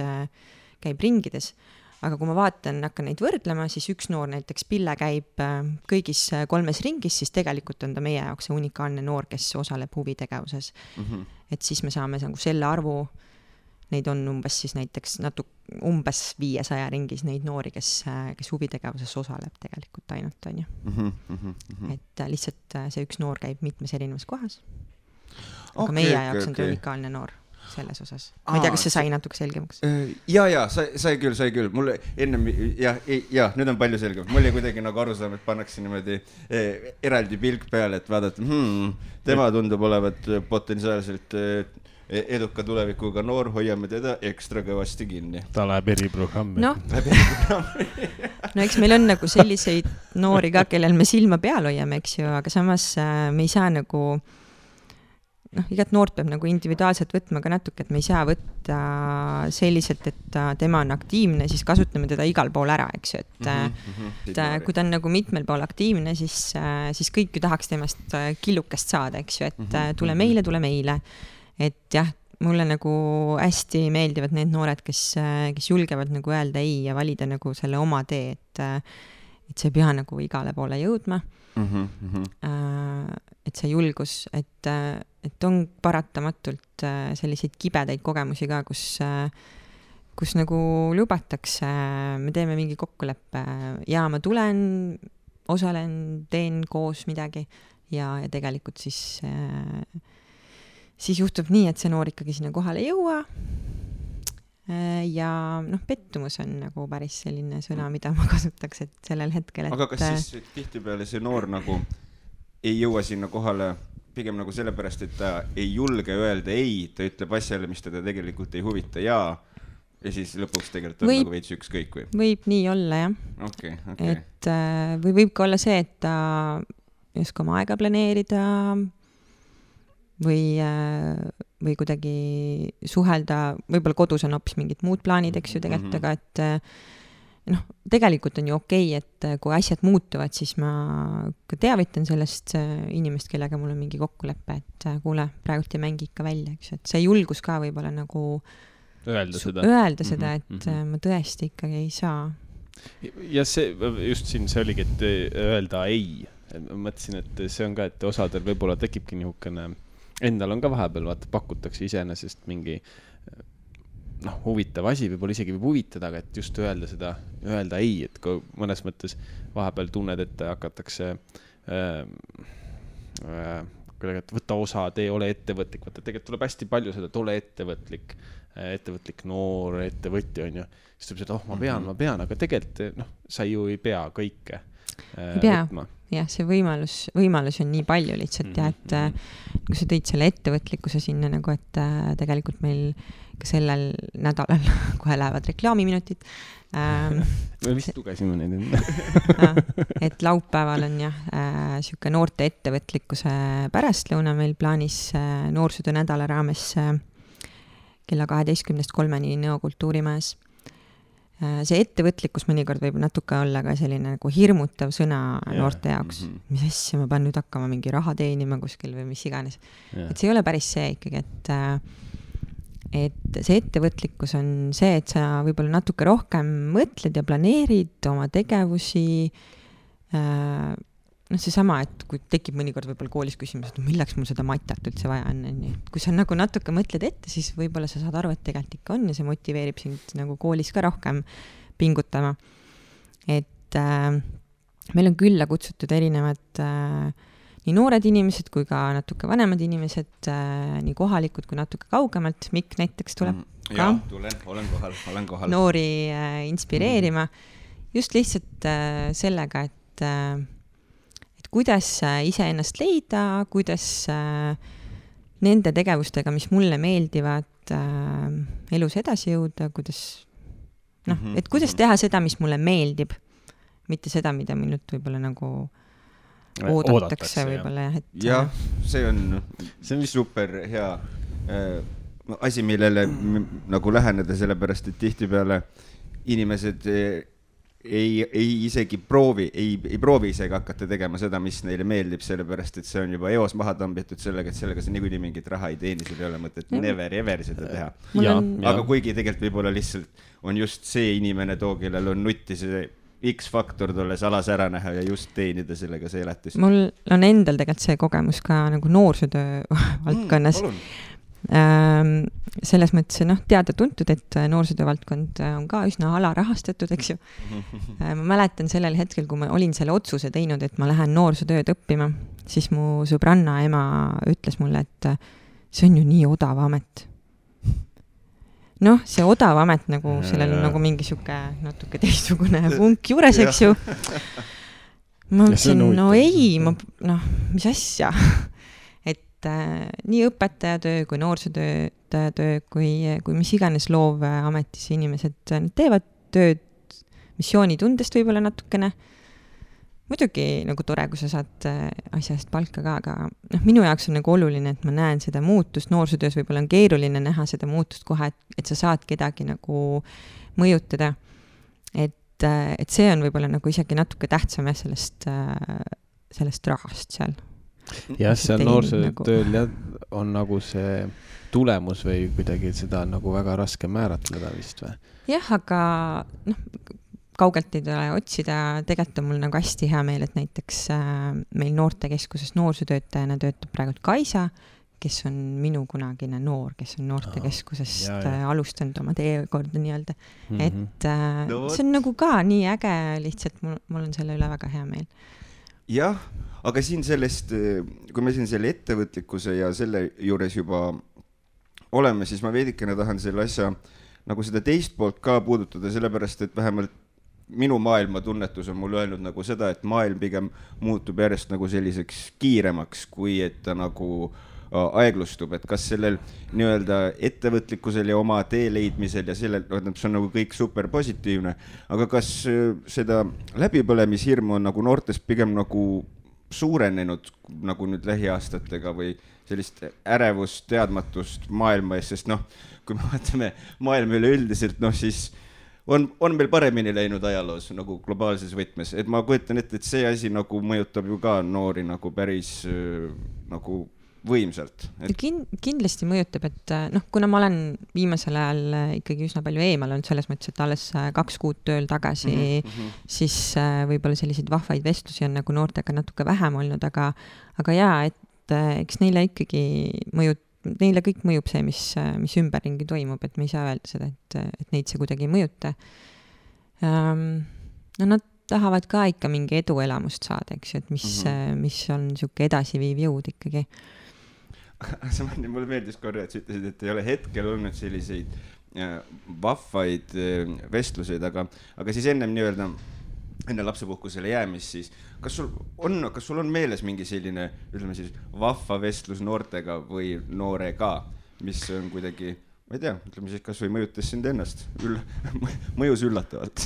käib ringides. Aga kui ma hakkan neid võrdlema, siis üks noor näiteks Pille käib kõigis 3 ringis, siis tegelikult on ta meie jaoks see unikaalne noor, kes osaleb huvitegevuses. Et siis me saame selle arvu, neid on umbes siis näiteks umbes 500 ringis neid noori, kes huvitegevuses osaleb tegelikult ainult, on ju. Et lihtsalt see üks noor käib mitmes erinevas kohas. Aga meie jaoks on ta unikaalne noor selles osas. Ma ei tea, kas see sai natuke selgemaks? Ja, sai küll. Mulle ennem, nüüd on palju selgem. Mul ei kuidagi nagu aru saama, et pannakse niimoodi eraldi pilk peale, et vaadata, tema tundub olevat potentsiaalselt eduka tulevikuga noor, hoiame teda ekstra kõvasti kinni. Ta läheb eriprogrammi. No, eks meil on nagu selliseid noori ka, kellel me silma peal hoiame, eks ju, aga samas me ei saa nagu igat noort peab nagu individuaalselt võtma ka natuke, et me ei saa võtta selliselt, et tema on aktiivne, siis kasutame teda igal pool ära, eks ju, et kui ta on nagu mitmel pool aktiivne, siis kõik ju tahaks temast killukest saada, eks ju, et tule meile, et jah, mulle nagu hästi meeldivad need noored, kes julgevad nagu öelda ei ja valida nagu selle oma tee, et see ei pea nagu igale poole jõudma. Et see julgus, et on paratamatult selliseid kibedaid kogemusi ka, kus nagu lubatakse, me teeme mingi kokkuleppe ja ma tulen, osalen, teen koos midagi ja tegelikult siis juhtub nii, et see noor ikkagi sinna kohale ei jõua ja pettumus on nagu päris selline sõna, mida ma kasutaks, et sellel hetkel, et... Aga kas siis tihtipeale see noor nagu ei jõua sinna kohale pigem nagu sellepärast, et ta ei julge öelda ei, ta ütleb asjale, mis teda tegelikult ei huvita ja siis lõpuks tegelikult on nagu veits ükskõik või? Võib nii olla, jah. Okay. Et või võib ka olla see, et ta ei oska oma aega planeerida või kuidagi suhelda, võib-olla kodus on hoopis mingid muud plaanid, eks ju tegelikult, aga et tegelikult on ju okei, et kui asjad muutuvad, siis ma ka teavitan sellest inimest, kellega mul on mingi kokkulepe, et kuule, praegult ei mängi ikka välja, eks, et see julgus ka võib-olla nagu öelda seda, et ma tõesti ikkagi ei saa. Ja see, just siin see oligi, et öelda ei. Ma mõtlesin, et see on ka, et osadel võib-olla tekibki nihukene, endal on ka vahepeal, vaata, pakutakse iseenesest mingi huvitav asi, võib-olla isegi võib huvitada, aga et just öelda ei, et kui mõnes mõttes vahepeal tunned, et hakatakse võtta osa, tee, ole ettevõtlik, vaata, tegelikult tuleb hästi palju seda, et ole ettevõtlik noor, ettevõtja on ju, siis tuleb seda, ma pean, aga tegelikult sa ju ei pea kõike võtma. Jah, see võimalus on nii palju lihtsalt ja et kui sa tõid selle ettevõtlikkuse sinna nagu, et tegelikult meil ka sellel nädalal kohe lähevad reklaamiminutid. Me vist lugesime neid. Et laupäeval on jah, siuke noorte ettevõtlikkuse pärastlõuna meil plaanis noorsootöö nädala raames kella 12:03 Nõo kultuurimajas. See ettevõtlikkus mõnikord võib natuke olla ka selline nagu hirmutav sõna noorte jaoks. Mis asja, ma pean nüüd hakkama mingi raha teenima kuskil või mis iganes. Et see ei ole päris see ikkagi, et see ettevõtlikkus on see, et sa võib-olla natuke rohkem mõtled ja planeerid oma tegevusi. See sama, et kui tekib mõnikord võib-olla koolis küsimus, et milleks mul seda matat üldse vaja on. Kui sa nagu natuke mõtled ette, siis võib-olla sa saad aru, et tegelikult ikka on ja see motiveerib sind nagu koolis ka rohkem pingutama. Et meil on külla kutsutud erinevad nii noored inimesed kui ka natuke vanemad inimesed, nii kohalikud kui natuke kaugemalt. Mikk näiteks tuleb ka olen kohal. Noori inspireerima. Just lihtsalt sellega, et kuidas iseennast leida, kuidas nende tegevustega, mis mulle meeldivad, elus edasi jõuda, kuidas, et kuidas teha seda, mis mulle meeldib, mitte seda, mida minult võib-olla nagu oodatakse võib-olla. Jah, see on super hea asi, millele nagu läheneda, sellepärast, et tihtipeale inimesed ei isegi proovi isegi hakata tegema seda, mis neile meeldib, sellepärast, et see on juba eos maha tambitud sellega, et sellega see niikuinii mingit raha ei teeni, sul ei ole mõtet never ever seda teha. Aga kuigi tegelikult võib-olla lihtsalt on just see inimene too, kellel on nutti see X-faktor tolles alas ära näha ja just teenida sellega see elatus. Mul on endal tegelikult see kogemus ka nagu noorsootöö valdkonnas. Selles mõttes teada-tuntud, et noorsootöö valdkond on ka üsna alarahastatud, eks ju. Ma mäletan sellel hetkel, kui ma olin selle otsuse teinud, et ma lähen noorsootööd õppima, siis mu sõbranna ema ütles mulle, et see on ju nii odav amet. See odav amet, nagu sellel on nagu mingi siuke natuke teistsugune vunk juures, eks ju. Ma mõtlesin, mis asja. Nii õpetajatöö kui noorsootöö kui mis iganes loovametis inimesed teevad tööd missioonitundest võib-olla natukene. Muidugi nagu tore, kui sa saad asjast palka ka, aga minu jaoks on nagu oluline, et ma näen seda muutust. Noorsootöös võib-olla on keeruline näha seda muutust kohe, et sa saad kedagi nagu mõjutada. Et see on võib-olla nagu isegi natuke tähtsam sellest rahast seal. Jah, seal noorsootööl on nagu see tulemus või kuidagi seda on nagu väga raske määratleda vist või? Jah, aga kaugelt ei tule otsida. Tegelikult on mul nagu hästi hea meel, et näiteks meil noortekeskuses noorsootöötajana töötab praegu Kaisa, kes on minu kunagine noor, kes on noortekeskusest alustanud oma teekorda nii-öelda. Et see on nagu ka nii äge, lihtsalt mul on selle üle väga hea meel. Jah, aga siin sellest, kui me siin selle ettevõtlikkuse ja selle juures juba oleme, siis ma veidikene tahan selle asja nagu seda teist poolt ka puudutada, sellepärast, et vähemalt minu maailma tunnetus on mul öelnud nagu seda, et maailm pigem muutub järjest nagu selliseks kiiremaks, kui et ta nagu aeglustub, et kas sellel nii-öelda ettevõtlikkusel ja oma tee leidmisel ja sellel, see on nagu kõik super positiivne, aga kas seda läbipõlemishirmu on nagu noortes pigem nagu suurenenud nagu nüüd lähiaastatega või sellist ärevust, teadmatust maailma ees, sest kui me vaatame maailma üleüldiselt, siis on meil paremini läinud ajaloos nagu globaalses võtmes, et ma kujutan ette, et see asi nagu mõjutab ju ka noori nagu päris nagu võimsalt. Kindlasti mõjutab, et kuna ma olen viimasel ajal ikkagi üsna palju eemal olnud selles mõttes, et alles 2 kuud tööl tagasi, siis võib-olla selliseid vahvaid vestlusi on nagu noortega natuke vähem olnud, aga jaa, et eks neile ikkagi neile kõik mõjub see, mis ümberringi toimub, et me ei saa öelda seda, et neid see kuidagi ei mõjuta. Nad tahavad ka ikka mingi eduelamust saada, eks ju, et mis on siuke edasiviiv jõud ikkagi. Mulle meeldis korra, et sa ütlesid, et ei ole hetkel olnud selliseid vahvaid vestluseid, aga siis enne lapsepuhkusele jäämist, siis kas sul on meeles mingi selline, ütleme siis, vahva vestlus noortega või noorega, mis on kuidagi, ma ei tea, ütleme siis, kas või mõjutas sind ennast, mõjus üllatavalt?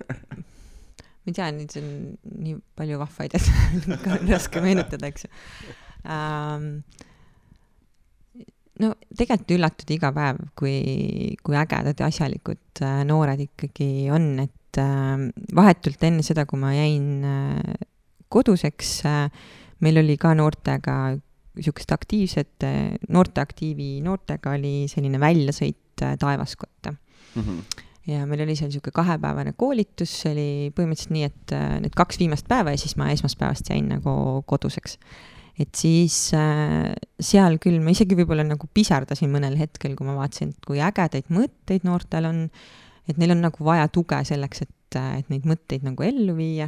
Ma ei tea, nüüd on nii palju vahvaid, et on raske meenutada, eks ju. Tegelikult üllatud iga päev, kui ägedad ja asjalikud noored ikkagi on, et vahetult enne seda, kui ma jäin koduseks, meil oli ka noortega niisugust aktiivset, noortega oli selline väljasõit Taevaskotta. Ja meil oli seal niisugune 2-päevane koolitus, see oli põhimõtteliselt nii, et need 2 viimast päeva ja siis ma esmaspäevast jäin nagu koduseks. Et siis seal küll, ma isegi võib-olla nagu pisardasin mõnel hetkel, kui ma vaatasin, kui ägedaid mõtteid noortel on, et neil on nagu vaja tuge selleks, et neid mõtteid nagu ellu viia.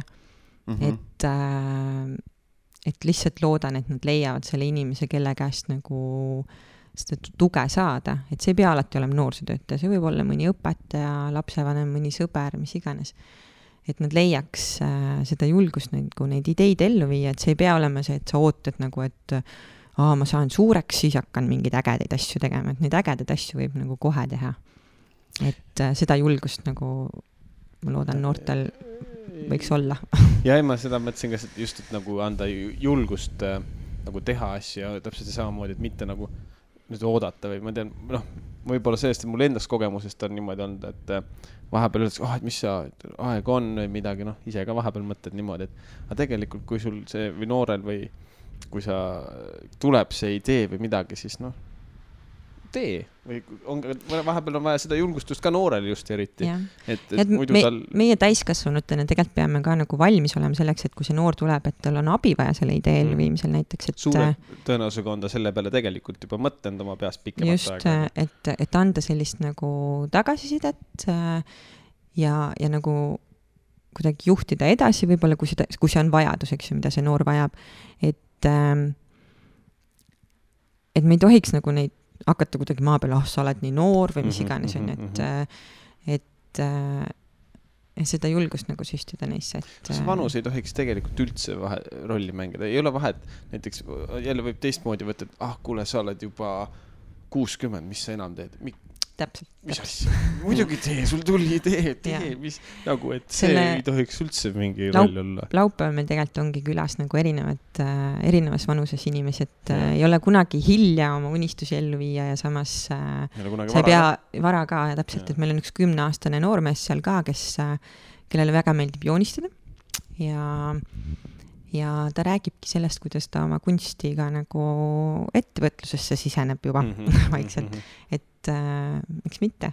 et lihtsalt loodan, et nad leiavad selle inimese, kelle käest nagu seda tuge saada, et see ei pea alati olema noorsootöötaja, see võib olla mõni õpetaja, lapsevanem, mõni sõber, mis iganes. Et nad leiaks seda julgust nagu neid ideid ellu viia, et see ei pea olema see, et sa ootad nagu, et ma saan suureks, siis hakkan mingeid ägedaid asju tegema, et neid ägedaid asju võib nagu kohe teha. Et seda julgust nagu ma loodan noortel võiks olla. Ja ma seda mõtlesin ka just, et nagu anda julgust nagu teha asju, täpselt samamoodi, et mitte nagu nüüd oodata või ma tean, võib-olla sellest, et mul endast kogemusest on niimoodi olnud, et vahepeal öeldakse, et mis sa aeg on või midagi, ise ka vahepeal mõtled niimoodi, et tegelikult kui sul see või noorel või kui sa tuleb see idee või midagi, siis tee või vahepeal on vaja seda julgustust ka noorel just eriti. Et meie täiskasvanutena tegelikult peame ka nagu valmis olema selleks, et kui see noor tuleb, et tal on abi vaja selle idee elluviimisel näiteks. Et suure tõenäosusega on ta selle peale tegelikult juba mõtlenud oma peast pikemat aega. Just, et anda sellist nagu tagasisidet ja nagu kuidagi juhtida edasi võib-olla, kui see on vajadus, eks ju, mida see noor vajab. Et me ei tohiks nagu neid hakata kuidagi maa peal, sa oled nii noor või mis iganes on, et seda julgust nagu süstida neisse. See vanus ei tohiks tegelikult üldse rolli mängida. Ei ole vahet, näiteks jälle võib teistmoodi võtta, et kuule, sa oled juba 60, mis sa enam teed? Täpselt. Mis asja? Muidugi tee, sul tuli idee, mis nagu, et see ei tohiks üldse mingi roll olla. Laupäeval meil tegelikult ongi külas nagu erinevas vanuses inimesi, et ei ole kunagi hilja oma unistusi ellu viia ja samas sa ei pea vara ka ja täpselt, et meil on üks 10-aastane noormees seal ka, kellele väga meeldib joonistada ja ta räägibki sellest, kuidas ta oma kunstiga nagu ettevõtlusesse siseneb juba vaikselt, et miks mitte?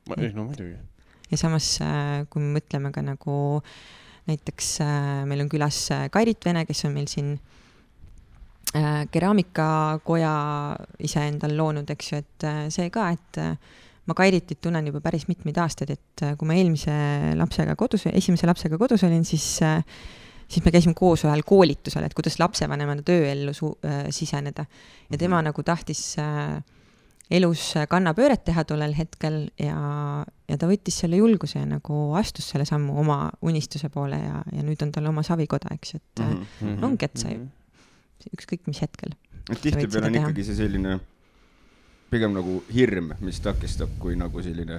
No muidugi. Ja samas, kui me mõtleme ka nagu näiteks meil on külas Kairit Vene, kes on meil siin keraamikakoja ise endal loonud, eks ju, et see ka, et ma Kairitit tunnen juba päris mitmeid aastaid, et kui ma esimese lapsega kodus olin, siis me käisime koos ühel koolitusel, et kuidas lapsevanemana tööellu siseneda. Ja tema nagu tahtis elus kannapööret teha tollel hetkel ja ta võttis selle julguse ja nagu astus selle sammu oma unistuse poole ja nüüd on tal oma savikoda, eks, et ongi, et sa ükskõik mis hetkel. Tihti peal on ikkagi see selline pigem nagu hirm, mis takistab kui nagu selline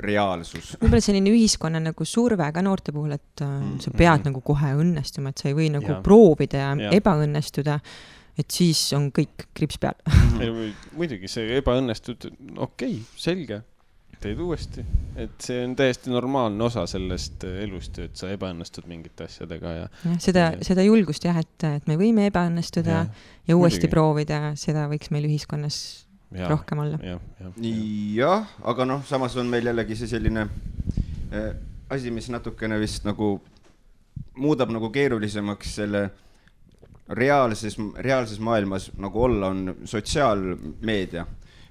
reaalsus. Võib-olla selline ühiskonna nagu surve ka noorte puhul, et sa pead nagu kohe õnnestuma, et sa ei või nagu proovida ja ebaõnnestuda, et siis on kõik krips peal. Muidugi see ebaõnnestud, okei, selge, teed uuesti. Et see on täiesti normaalne osa sellest elust, et sa ebaõnnestud mingite asjadega. Seda julgust jah, et me võime ebaõnnestuda ja uuesti proovida, seda võiks meil ühiskonnas rohkem olla. Jah, aga samas on meil jällegi see selline asi, mis natukene vist nagu muudab nagu keerulisemaks selle reaalses maailmas nagu olla on sotsiaalmeedia,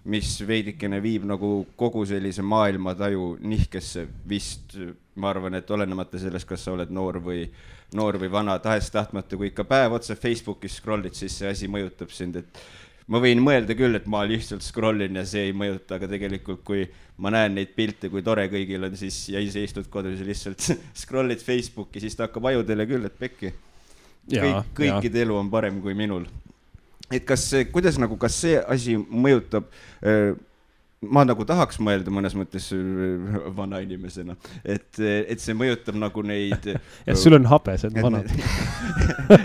mis veidikene viib nagu kogu sellise maailmataju nihkesse vist, ma arvan, et olenemata sellest, kas sa oled noor või vana, tahes-tahtmata, kui ikka päev otsa Facebookis scrollid, siis see asi mõjutab sind, et ma võin mõelda küll, et ma lihtsalt scrollin ja see ei mõjuta, aga tegelikult kui ma näen neid pilte, kui tore kõigil on, siis ja ise istud kodus ja lihtsalt scrollid Facebooki, siis ta hakkab ajudele küll, et pekki. Kõikide elu on parem kui minul. Et kas see asi mõjutab, ma nagu tahaks mõelda mõnes mõttes vana inimesena, et see mõjutab nagu neid... Ja sul on habe, see on vanad.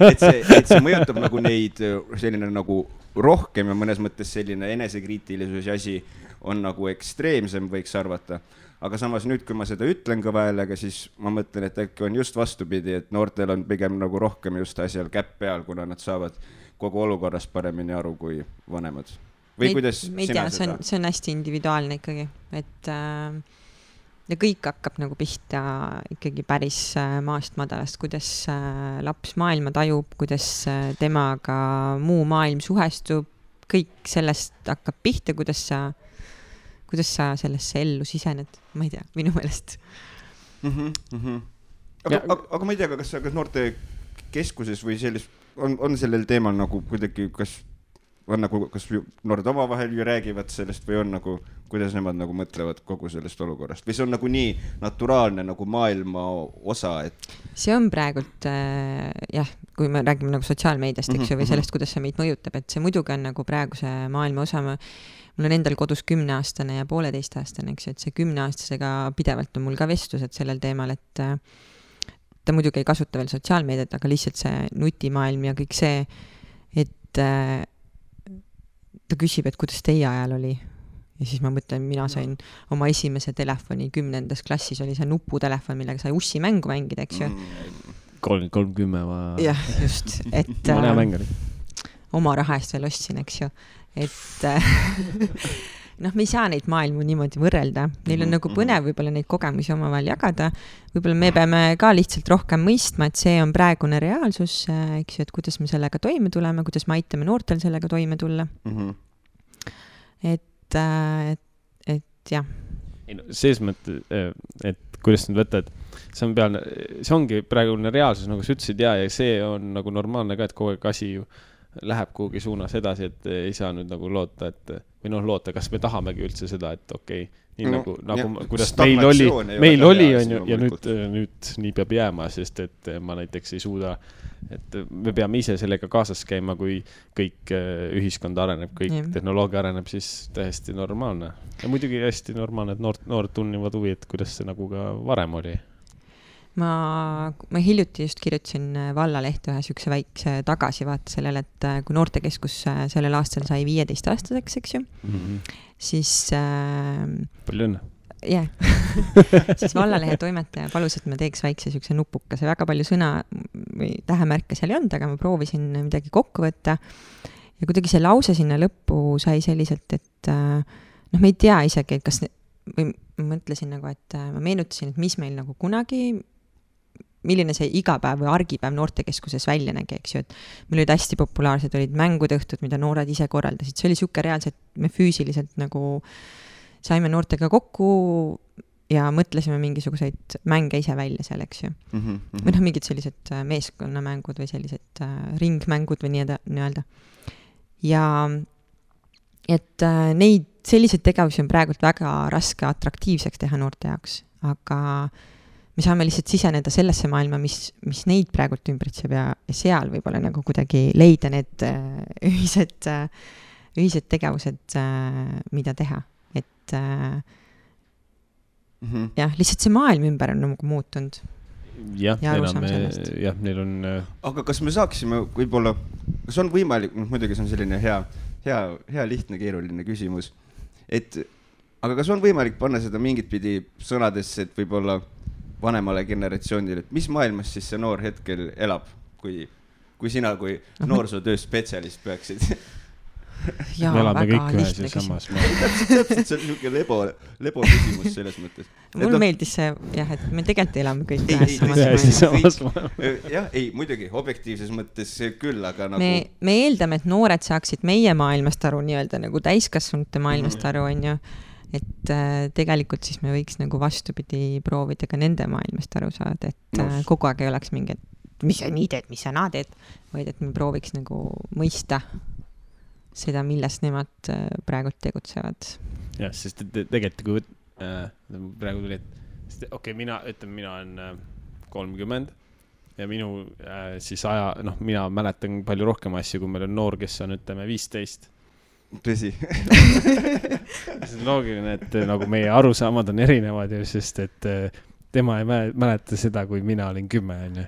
et see mõjutab nagu neid selline nagu rohkem ja mõnes mõttes selline enesekriitilisus asi on nagu ekstreemsem, võiks arvata. Aga samas nüüd, kui ma seda ütlen ka väelega, siis ma mõtlen, et äkki on just vastupidi, et noortel on pigem nagu rohkem just asjal käpp peal, kuna nad saavad kogu olukorrast paremini aru kui vanemad. Või kuidas sina seda? See on hästi individuaalne ikkagi, et ja kõik hakkab nagu pihta ikkagi päris maast madalast, kuidas laps maailma tajub, kuidas temaga muu maailm suhestub, kõik sellest hakkab pihta, kuidas sa sellesse ellu sisened, ma ei tea, minu meelest. Aga ma ei tea, kas noorte keskuses või on sellel teemal nagu kuidagi, kas noored omavahel ju räägivad sellest või on nagu, kuidas nemad nagu mõtlevad kogu sellest olukorrast või see on nagu nii naturaalne nagu maailma osa, et see on praegult jah, kui me räägime nagu sotsiaalmeediast, eks ju, või sellest, kuidas see meid mõjutab, et see muidugi on nagu praeguse maailma osa. Mul on endal kodus 10-aastane ja 1,5-aastane, eks ju, et see 10-aastasega pidevalt on mul ka vestlused sellel teemal, et ta muidugi ei kasuta veel sotsiaalmeediat, aga lihtsalt see nutimaailm ja kõik see, et ta küsib, et kuidas teie ajal oli. Ja siis ma mõtlen, mina sain oma esimese telefoni 10. klassis, oli see nuputelefon, millega sai ussi mängu mängida, eks ju. 310 jah, just, et oma raha eest veel ostsin, eks ju. Et me ei saa neid maailmu niimoodi võrrelda. Neil on nagu põnev võib-olla neid kogemusi omavahel jagada. Võib-olla me peame ka lihtsalt rohkem mõistma, et see on praegune reaalsus, eks ju, et kuidas me sellega toime tuleme, kuidas me aitame noortel sellega toime tulla. Et jah. Selles mõttes, et kuidas nüüd võtta, et see ongi praegune reaalsus, nagu sa ütlesid, ja see on nagu normaalne ka, et kogu aeg asi ju läheb kuhugi suunas edasi, et ei saa nüüd nagu loota, et või loota, kas me tahamegi üldse seda, et okei, nii nagu kuidas meil oli on ju, ja nüüd nii peab jääma, sest et ma näiteks ei suuda, et me peame ise sellega kaasas käima, kui kõik ühiskond areneb, kõik tehnoloogia areneb, siis täiesti normaalne. Ja muidugi hästi normaalne, et noored tunnivad huvi, et kuidas see nagu ka varem oli. Ma hiljuti just kirjutasin Vallalehte ühe sükse väikse tagasivaate sellele, et kui noortekeskus sellel aastal sai 15-aastaseks, eks ju, siis palju õnne. Jah, siis Vallalehe toimetaja palus, et me teeks väikse sükse nupukase, väga palju sõna või tähemärke seal ei olnud, aga ma proovisin midagi kokku võtta ja kuidagi see lause sinna lõppu sai selliselt, et me ei tea isegi, kas või ma mõtlesin nagu, et ma meenutasin, et mis meil nagu kunagi milline see igapäev või argipäev noortekeskuses välja nägi, eks ju, et meil olid hästi populaarsed, olid mängud õhtud, mida noored ise korraldasid, see oli siuke reaalselt, me füüsiliselt nagu saime noortega kokku ja mõtlesime mingisuguseid mänge ise välja seal, eks ju. Või mingid sellised meeskonnamängud või sellised ringmängud või nii-öelda. Ja et neid selliseid tegevusi on praegult väga raske atraktiivseks teha noorte jaoks, aga me saame lihtsalt siseneda sellesse maailma, mis neid praegult ümbritseb ja seal võib-olla nagu kuidagi leida need ühised tegevused, mida teha. Et jah, lihtsalt see maailm ümber on nagu muutunud. Jah, neil on... Aga kas me saaksime võib-olla, kas on võimalik, muidugi see on selline hea lihtne, keeruline küsimus, aga kas on võimalik panna seda mingit pidi sõnadesse, et võib-olla vanemale generatsioonile, et mis maailmas siis see noor hetkel elab, kui sina kui noorsootöö spetsialist peaksid? Jaa, me elame väga kõik ühes ja samas maailmas. Täpselt see on niisugune lebo küsimus selles mõttes. Mul meeldis see, jah, et me tegelikult elame kõik ühes samas maailmas. Jah, ei, muidugi, objektiivses mõttes küll, aga nagu... Me eeldame, et noored saaksid meie maailmast aru, nii-öelda nagu täiskasvanute maailmast aru, on ju. Et tegelikult siis me võiks nagu vastupidi proovida ka nende maailmast aru saada, et kogu aeg ei oleks mingi, et mis sa nii teed, mis sa naa teed, vaid et me prooviks nagu mõista seda, milles nemad praegu tegutsevad. Jah, sest tegelikult kui praegu tuli, et okei, mina olen 30 ja minu siis mina mäletan palju rohkem asju, kui meil on noor, kes on 15. Tõsi. See on loogiline, et nagu meie arusaamad on erinevad, sest et tema ei mäleta seda, kui mina olin 10.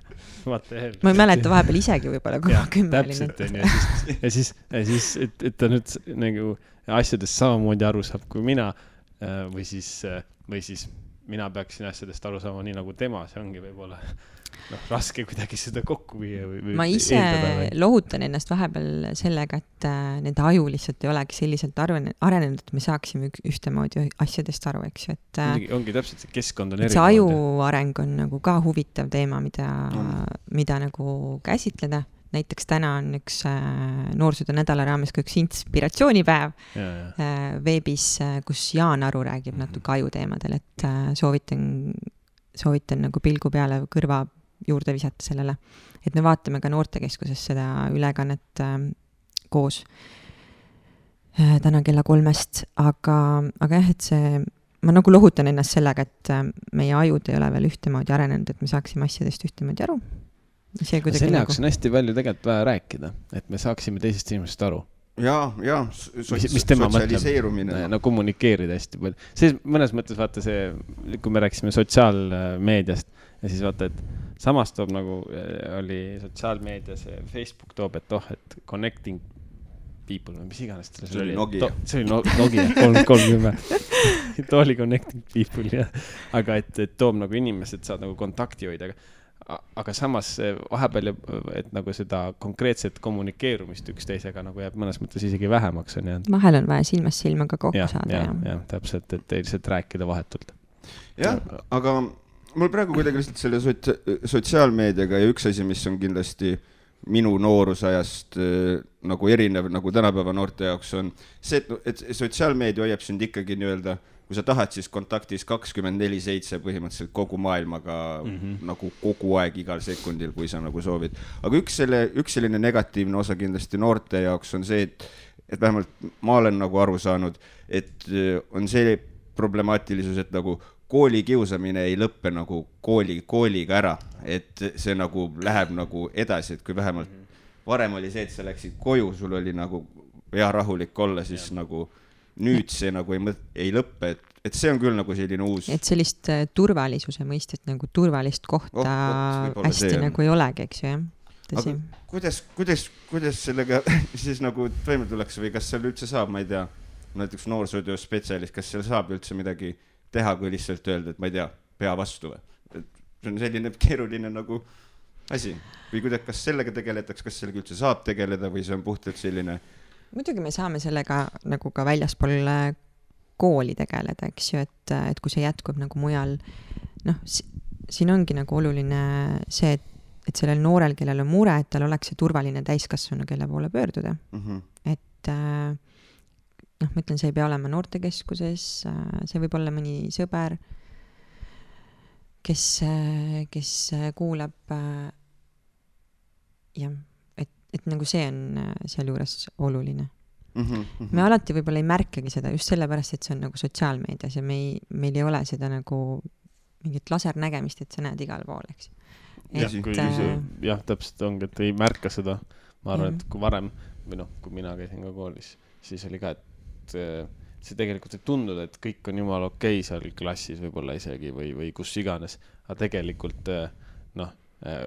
Ma ei mäleta vahepeal isegi võib-olla, kui ma 10 olin. Täpselt, ja siis, et ta nüüd nagu asjadest samamoodi aru saab kui mina või siis mina peaksin asjadest aru saama nii nagu tema, see ongi võib-olla raske kuidagi seda kokku viia või ma ise lohutan ennast vahepeal sellega, et nende aju lihtsalt ei olegi selliselt arenenud, et me saaksime ühtemoodi asjadest aru, eks ju, et ongi täpselt, see keskkond on erinev. See aju areng on nagu ka huvitav teema, mida nagu käsitleda. Näiteks täna on üks noorsootöö nädala raames ka üks inspiratsioonipäev veebis, kus Jaan Aru räägib natuke ajuteemadel, et soovitan nagu pilgu peale kõrva juurde visata sellele. Et me vaatame ka noortekeskuses seda ülekannet koos täna kella 3, aga jah, et see, ma nagu lohutan ennast sellega, et meie ajud ei ole veel ühtemoodi arenenud, et me saaksime asjadest ühtemoodi aru. Selle jaoks on hästi palju tegelikult vaja rääkida, et me saaksime teisest inimesest aru. Ja, sotsialiseerumine. No kommunikeerida hästi palju. Siis mõnes mõttes vaata see, kui me rääkisime sotsiaalmeediast ja siis vaata, et samas toob nagu oli sotsiaalmeedias, Facebook toob, et et connecting people, mis iganes see oli Nokia. See oli Nokia 330. See oli connecting people, jah. Aga et toob nagu inimesed saad nagu kontakti hoida, aga samas vahepeal, et nagu seda konkreetset kommunikeerumist üksteisega nagu jääb mõnes mõttes isegi vähemaks on jäänud. Vahel on vaja silmast silmaga kokku saada. Ja, täpselt, et lihtsalt rääkida vahetult. Jah, aga mul praegu kuidagi lihtsalt selle sotsiaalmeediaga ja üks asi, mis on kindlasti minu noorusajast nagu erinev, nagu tänapäeva noorte jaoks on see, et sotsiaalmeedia hoiab sind ikkagi nii-öelda, kui sa tahad, siis kontaktis 24/7 põhimõtteliselt kogu maailmaga nagu kogu aeg igal sekundil, kui sa nagu soovid. Aga üks selline negatiivne osa kindlasti noorte jaoks on see, et vähemalt ma olen nagu aru saanud, et on see problemaatilisus, et nagu kooli kiusamine ei lõppe nagu kooliga ära, et see nagu läheb nagu edasi, et kui vähemalt varem oli see, et sa läksid koju, sul oli nagu hea rahulik olla, siis nagu nüüd see nagu ei lõppe, et see on küll nagu selline uus. Et sellist turvalisuse mõistet, nagu turvalist kohta hästi nagu ei olegi, eks ju, jah? Aga kuidas sellega siis nagu toime tuleks või kas seal üldse saab, ma ei tea, näiteks noorsootöö spetsialist, kas seal saab üldse midagi teha, kui lihtsalt öelda, et ma ei tea, pea vastu või? See on selline keeruline nagu asi. Või kas sellega tegeletakse, kas sellega üldse saab tegeleda või see on puhtalt selline? Muidugi me saame sellega nagu ka väljaspool kooli tegeleda, eks ju, et kui see jätkub nagu mujal, siin ongi nagu oluline see, et sellel noorel, kellel on mure, et tal oleks see turvaline täiskasvanu, kelle poole pöörduda. Et ma ütlen, see ei pea olema noortekeskuses, see võib olla mõni sõber, kes kuulab jah, et nagu see on seal juures oluline. Me alati võib-olla ei märkagi seda just sellepärast, et see on nagu sotsiaalmeedias ja meil ei ole seda nagu mingit lasernägemist, et sa näed igal pool, eks. Jah, täpselt ongi, et ei märka seda. Ma arvan, et kui varem, või kui mina käisin ka koolis, siis oli ka, et see tegelikult ei tundunud, et kõik on jumala okei seal klassis võib-olla isegi või kus iganes, aga tegelikult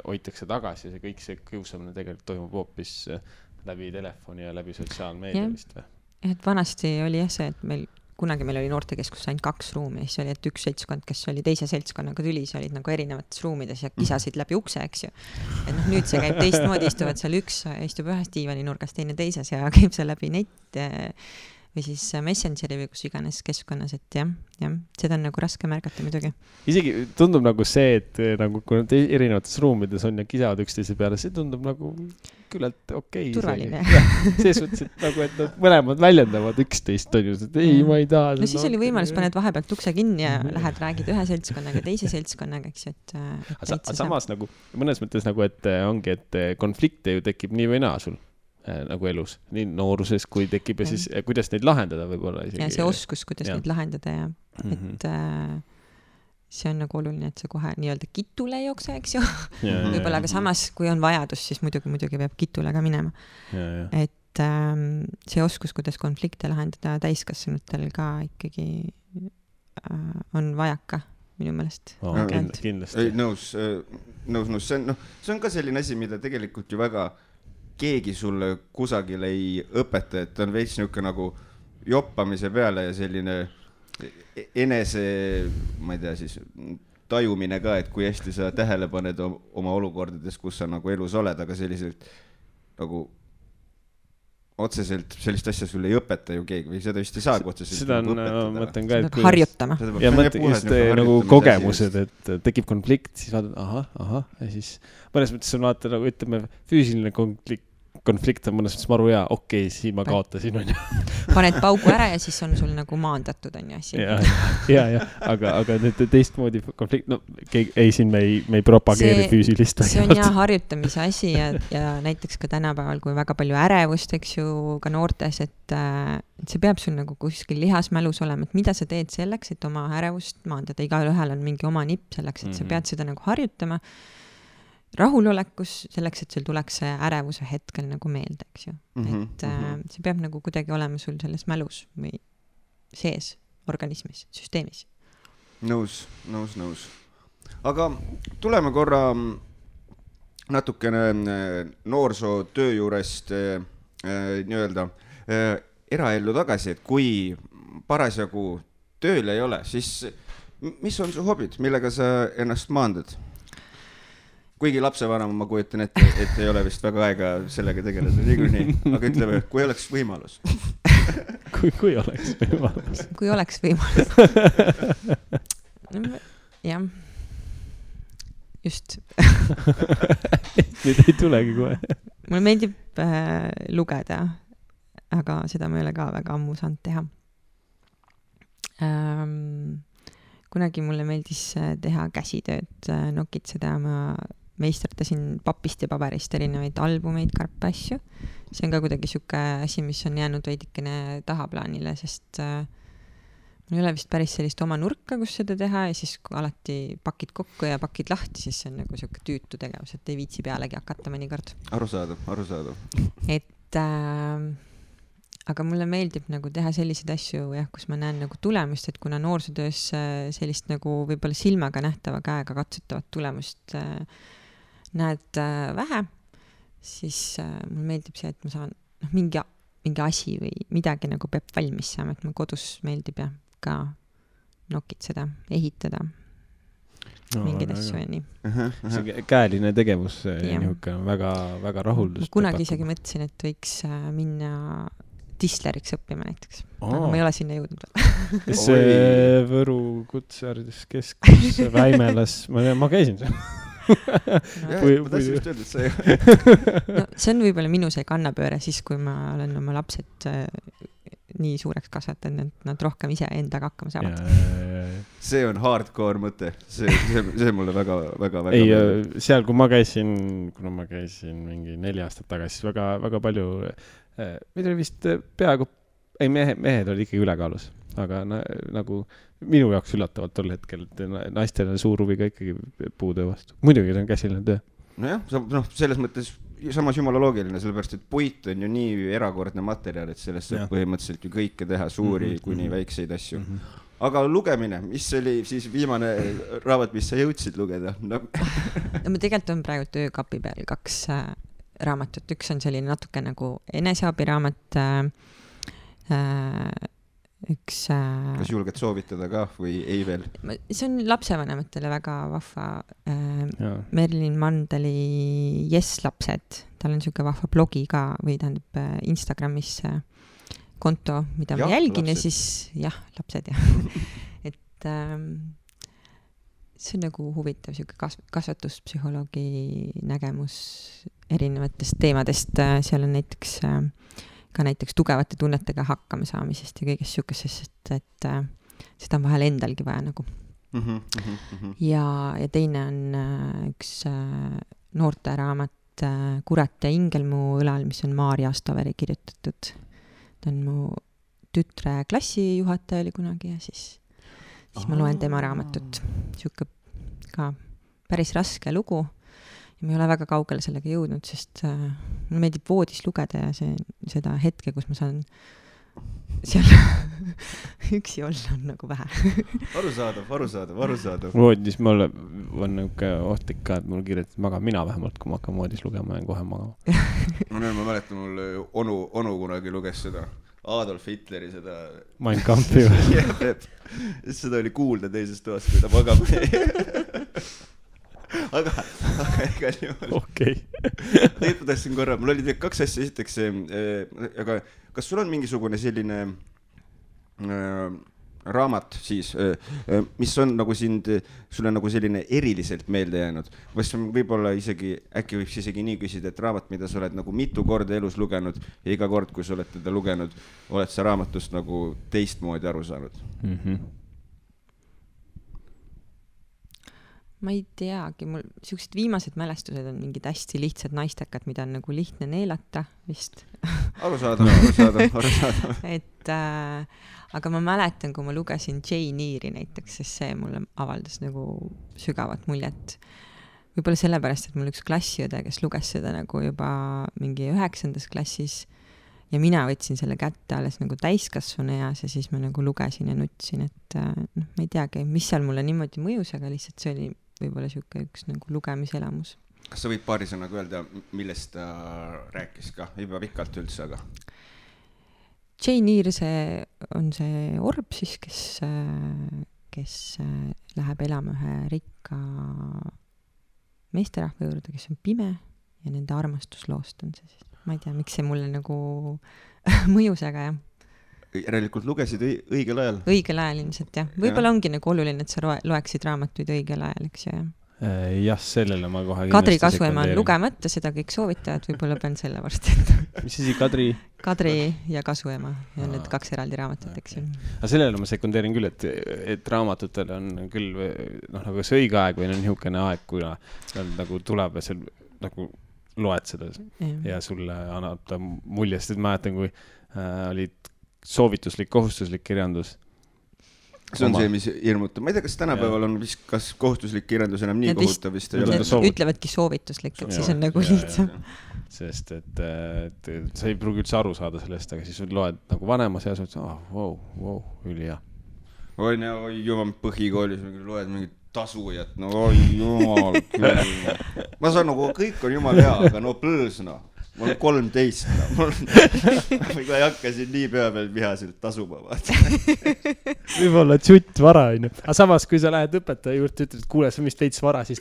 hoitakse tagasi ja kõik see kiusamine tegelikult toimub hoopis läbi telefoni ja läbi sotsiaalmeedia vist või? Et vanasti oli jah see, et kunagi meil oli noortekeskus ainult 2 ruumi, siis oli, et üks seltskond, kes oli teise seltskonnaga tülis, olid nagu erinevates ruumides ja kisasid läbi ukse, eks ju. Et nüüd see käib teistmoodi, istuvad seal üks, istub ühes diivani nurgas, teine teises ja käib seal läbi net või siis Messengeri või kus iganes keskkonnas, et jah, seda on nagu raske märgata muidugi. Isegi tundub nagu see, et nagu kui nad erinevates ruumides on ja kisavad üksteise peale, see tundub nagu küllalt okei. Turvaline. See suhtes, et nagu, et nad mõlemad väljendavad üksteist, on ju, et ei, ma ei taha. No siis oli võimalus, paned vahepealt ukse kinni ja lähed räägid ühe seltskonnaga, teise seltskonnaga, eks ju, et samas nagu, mõnes mõttes nagu, et ongi, et konflikte ju tekib nii või naa sul nagu elus, nii nooruses, kui tekib ja siis kuidas neid lahendada võib-olla isegi. Ja see oskus, kuidas neid lahendada ja et see on nagu oluline, et see kohe nii-öelda kitule ei jookse, eks ju. Võib-olla aga samas, kui on vajadus, siis muidugi peab kitule ka minema. Et see oskus, kuidas konflikte lahendada täiskasvanutel ka ikkagi on vajaka minu meelest. Kindlasti. Nõus. See on ka selline asi, mida tegelikult ju väga keegi sulle kusagil ei õpeta, et on veits niisugune nagu joppamise peale ja selline enese, ma ei tea siis, tajumine ka, et kui hästi sa tähele paned oma olukordades, kus sa nagu elus oled, aga selliselt nagu otseselt sellist asja sulle ei õpeta ju keegi või seda vist ei saagi otseselt seda on, mõtlen ka, et harjutama. Ja mõtlen just nagu kogemused, et tekib konflikt, siis vaatad, ahah, ja siis mõnes mõttes on vaata nagu, ütleme, füüsiline konflikt on mõnes mõttes maru hea, okei, siin ma kaotasin, on ju. Paned paugu ära ja siis on sul nagu maandatud, on ju, asi. Ja, aga nüüd teistmoodi konflikt, no ei, siin me ei propageeri füüsilist. See on jah harjutamise asi ja näiteks ka tänapäeval, kui väga palju ärevust, eks ju, ka noortes, et see peab sul nagu kuskil lihasmälus olema, et mida sa teed selleks, et oma ärevust maandada. Igal ühel on mingi oma nipp selleks, et sa pead seda nagu harjutama rahulolekus selleks, et sul tuleks see ärevuse hetkel nagu meelde, eks ju. Et see peab nagu kuidagi olema sul selles mälus või sees organismis, süsteemis. Nõus. Aga tuleme korra natukene noorsootöö juurest nii-öelda eraellu tagasi, et kui parasjagu tööl ei ole, siis mis on su hobid, millega sa ennast maandad? Kuigi lapsevanema ma kujutan ette, et ei ole vist väga aega sellega tegeleda niikuinii, aga ütleme, kui oleks võimalus. Kui oleks võimalus. Kui oleks võimalus. Jah. Just. Nüüd ei tulegi kohe. Mulle meeldib lugeda, aga seda ma ei ole ka väga ammu saanud teha. Kunagi mulle meeldis teha käsitööd, nokitseda, ma meisterdasin papist ja paberist erinevaid albumeid, karpe asju. See on ka kuidagi siuke asi, mis on jäänud veidikene tahaplaanile, sest mul ei ole vist päris sellist oma nurka, kus seda teha ja siis kui alati pakid kokku ja pakid lahti, siis see on nagu siuke tüütu tegevus, et ei viitsi pealegi hakata mõnikord. Arusaadav. Et aga mulle meeldib nagu teha selliseid asju, jah, kus ma näen nagu tulemust, et kuna noorsootöös sellist nagu võib-olla silmaga nähtava käega katsutavat tulemust näed vähe, siis mulle meeldib see, et ma saan mingi asi või midagi nagu peab valmis saama, et mul kodus meeldib ja ka nokitseda, ehitada mingeid asju ja nii. See käeline tegevus nihuke väga, väga rahuldust. Kunagi isegi mõtlesin, et võiks minna disleriks õppima näiteks. Aga ma ei ole sinna jõudnud veel. Kes see Võru kutseharidus keskus, Väimelas, ma käisin seal. Ma tahtsin just öelda, et see see on võib-olla minu see kannapööre siis, kui ma olen oma lapsed nii suureks kasvatanud, et nad rohkem ise endaga hakkama saavad. See on hardcore mõte. See mulle väga ei, seal, kui ma käisin mingi 4 aastat tagasi, siis väga palju meid oli vist peaaegu mehed olid ikkagi ülekaalus, aga nagu minu jaoks üllatavalt tol hetkel, et naistel on suur huvi ka ikkagi puutöö vastu. Muidugi see on käsiline töö. Nojah, selles mõttes samas jumala loogiline, sellepärast, et puit on ju nii erakordne materjal, et sellest saab põhimõtteliselt ju kõike teha, suuri kuni väikseid asju. Aga lugemine, mis oli siis viimane raamat, mis sa jõudsid lugeda? Ma tegelikult on praegu töökapi peal 2 raamatut. Üks on selline natuke nagu eneseabiraamat, üks... Kas julged soovitada ka või ei veel? See on lapsevanematele väga vahva. Merlin Mandeli Yes lapsed. Tal on siuke vahva blogi ka või tähendab Instagramis konto, mida ma jälgin lapsed. Ja siis lapsed et see on nagu huvitav siuke kasvatuspsühholoogi nägemus erinevatest teemadest. Seal on näiteks tugevate tunnetega hakkama saamisest ja kõigest siukesest, et seda on vahel endalgi vaja nagu. Ja teine on üks noorte raamat Kurat ja ingel mu õlal, mis on Maarja Astoveri kirjutatud. Ta on mu tütre klassijuhataja oli kunagi ja siis ma loen tema raamatut. Siuke ka päris raske lugu ja ma ei ole väga kaugele sellega jõudnud, sest mulle meeldib voodis lugeda ja seda hetke, kus ma saan seal üksi olla on nagu vähe. Arusaadav. Voodis mul on niuke ohtlik ka, et mul kirjetab maga mina vähemalt, kui ma hakkan voodis lugema, jään kohe magama. Ma mäletan, mul onu kunagi luges seda Adolf Hitleri seda Mein Kampfi või? Seda oli kuulda teises toas, kui ta magama aga igal juhul. Okei. Tegelikult tahtsin korra, mul oli 2 asja esiteks, aga kas sul on mingisugune selline raamat siis, mis on nagu sulle nagu selline eriliselt meelde jäänud? Võib-olla äkki võiks isegi nii küsida, et raamat, mida sa oled nagu mitu korda elus lugenud ja iga kord, kui sa oled teda lugenud, oled sa raamatust nagu teistmoodi aru saanud? Ma ei teagi, mul siuksed viimased mälestused on mingid hästi lihtsad naistekad, mida on nagu lihtne neelata vist. Arusaadav. Et aga ma mäletan, kui ma lugesin Jane Eyre'i näiteks, sest see mulle avaldas nagu sügavat muljet. Võib-olla sellepärast, et mul üks klassiõde, kes luges seda nagu juba mingi 9. klassis ja mina võtsin selle kätte alles nagu täiskasvanu eas ja siis ma nagu lugesin ja nutsin, et ma ei teagi, mis seal mulle niimoodi mõjus, aga lihtsalt see oli võib-olla üks nagu lugemiselamus. Kas sa võid paari sõnaga öelda, millest ta rääkis ka? Ei pea pikalt üldse, aga... Jane Eyre on see orb siis, kes läheb elama ühe rikka meesterahva juurde, kes on pime ja nende armastusloost on see siis. Ma ei tea, miks see mulle nagu mõjus, aga jah. Järelikult lugesid õigel ajal? Õigel ajal ilmselt, jah. Võib-olla ongi nagu oluline, et sa loeksid raamatuid õigel ajal, eks ju, jah. Jah, sellele ma kohe Kadri Kasuema on lugemata, seda kõik soovitavad, võib-olla pean selle varsti. Mis asi, Kadri? Kadri ja Kasuema ja need 2 eraldi raamatut, eks ju. Aga sellele ma sekundeerin küll, et raamatutel on küll nagu see õige aeg või on niisugune aeg, kui nagu tuleb ja seal nagu loed seda ja sulle annab ta mulje, sest mäletan, kui olid soovituslik, kohustuslik kirjandus. See on see, mis hirmutab. Ma ei tea, kas tänapäeval on vist, kas kohustuslik kirjandus enam nii kohutav vist ei ole. Ütlevadki soovituslik, et siis on nagu lihtsam. Sest, et sa ei pruugi üldse aru saada sellest, aga siis loed nagu vanemas ja wow, üli hea. Oi, jumal, põhikoolis loed mingit tasujat, no oi, jumal küll. Ma saan nagu, kõik on jumal hea, aga no plõõs, no. Mul on 13, no. Ma ei hakka siin nii pea peal vihaselt tasuma, vaata. Võib-olla tšutt vara, on ju. Aga samas, kui sa lähed õpetaja juurde, ütled, et kuule, sa vist veits vara, siis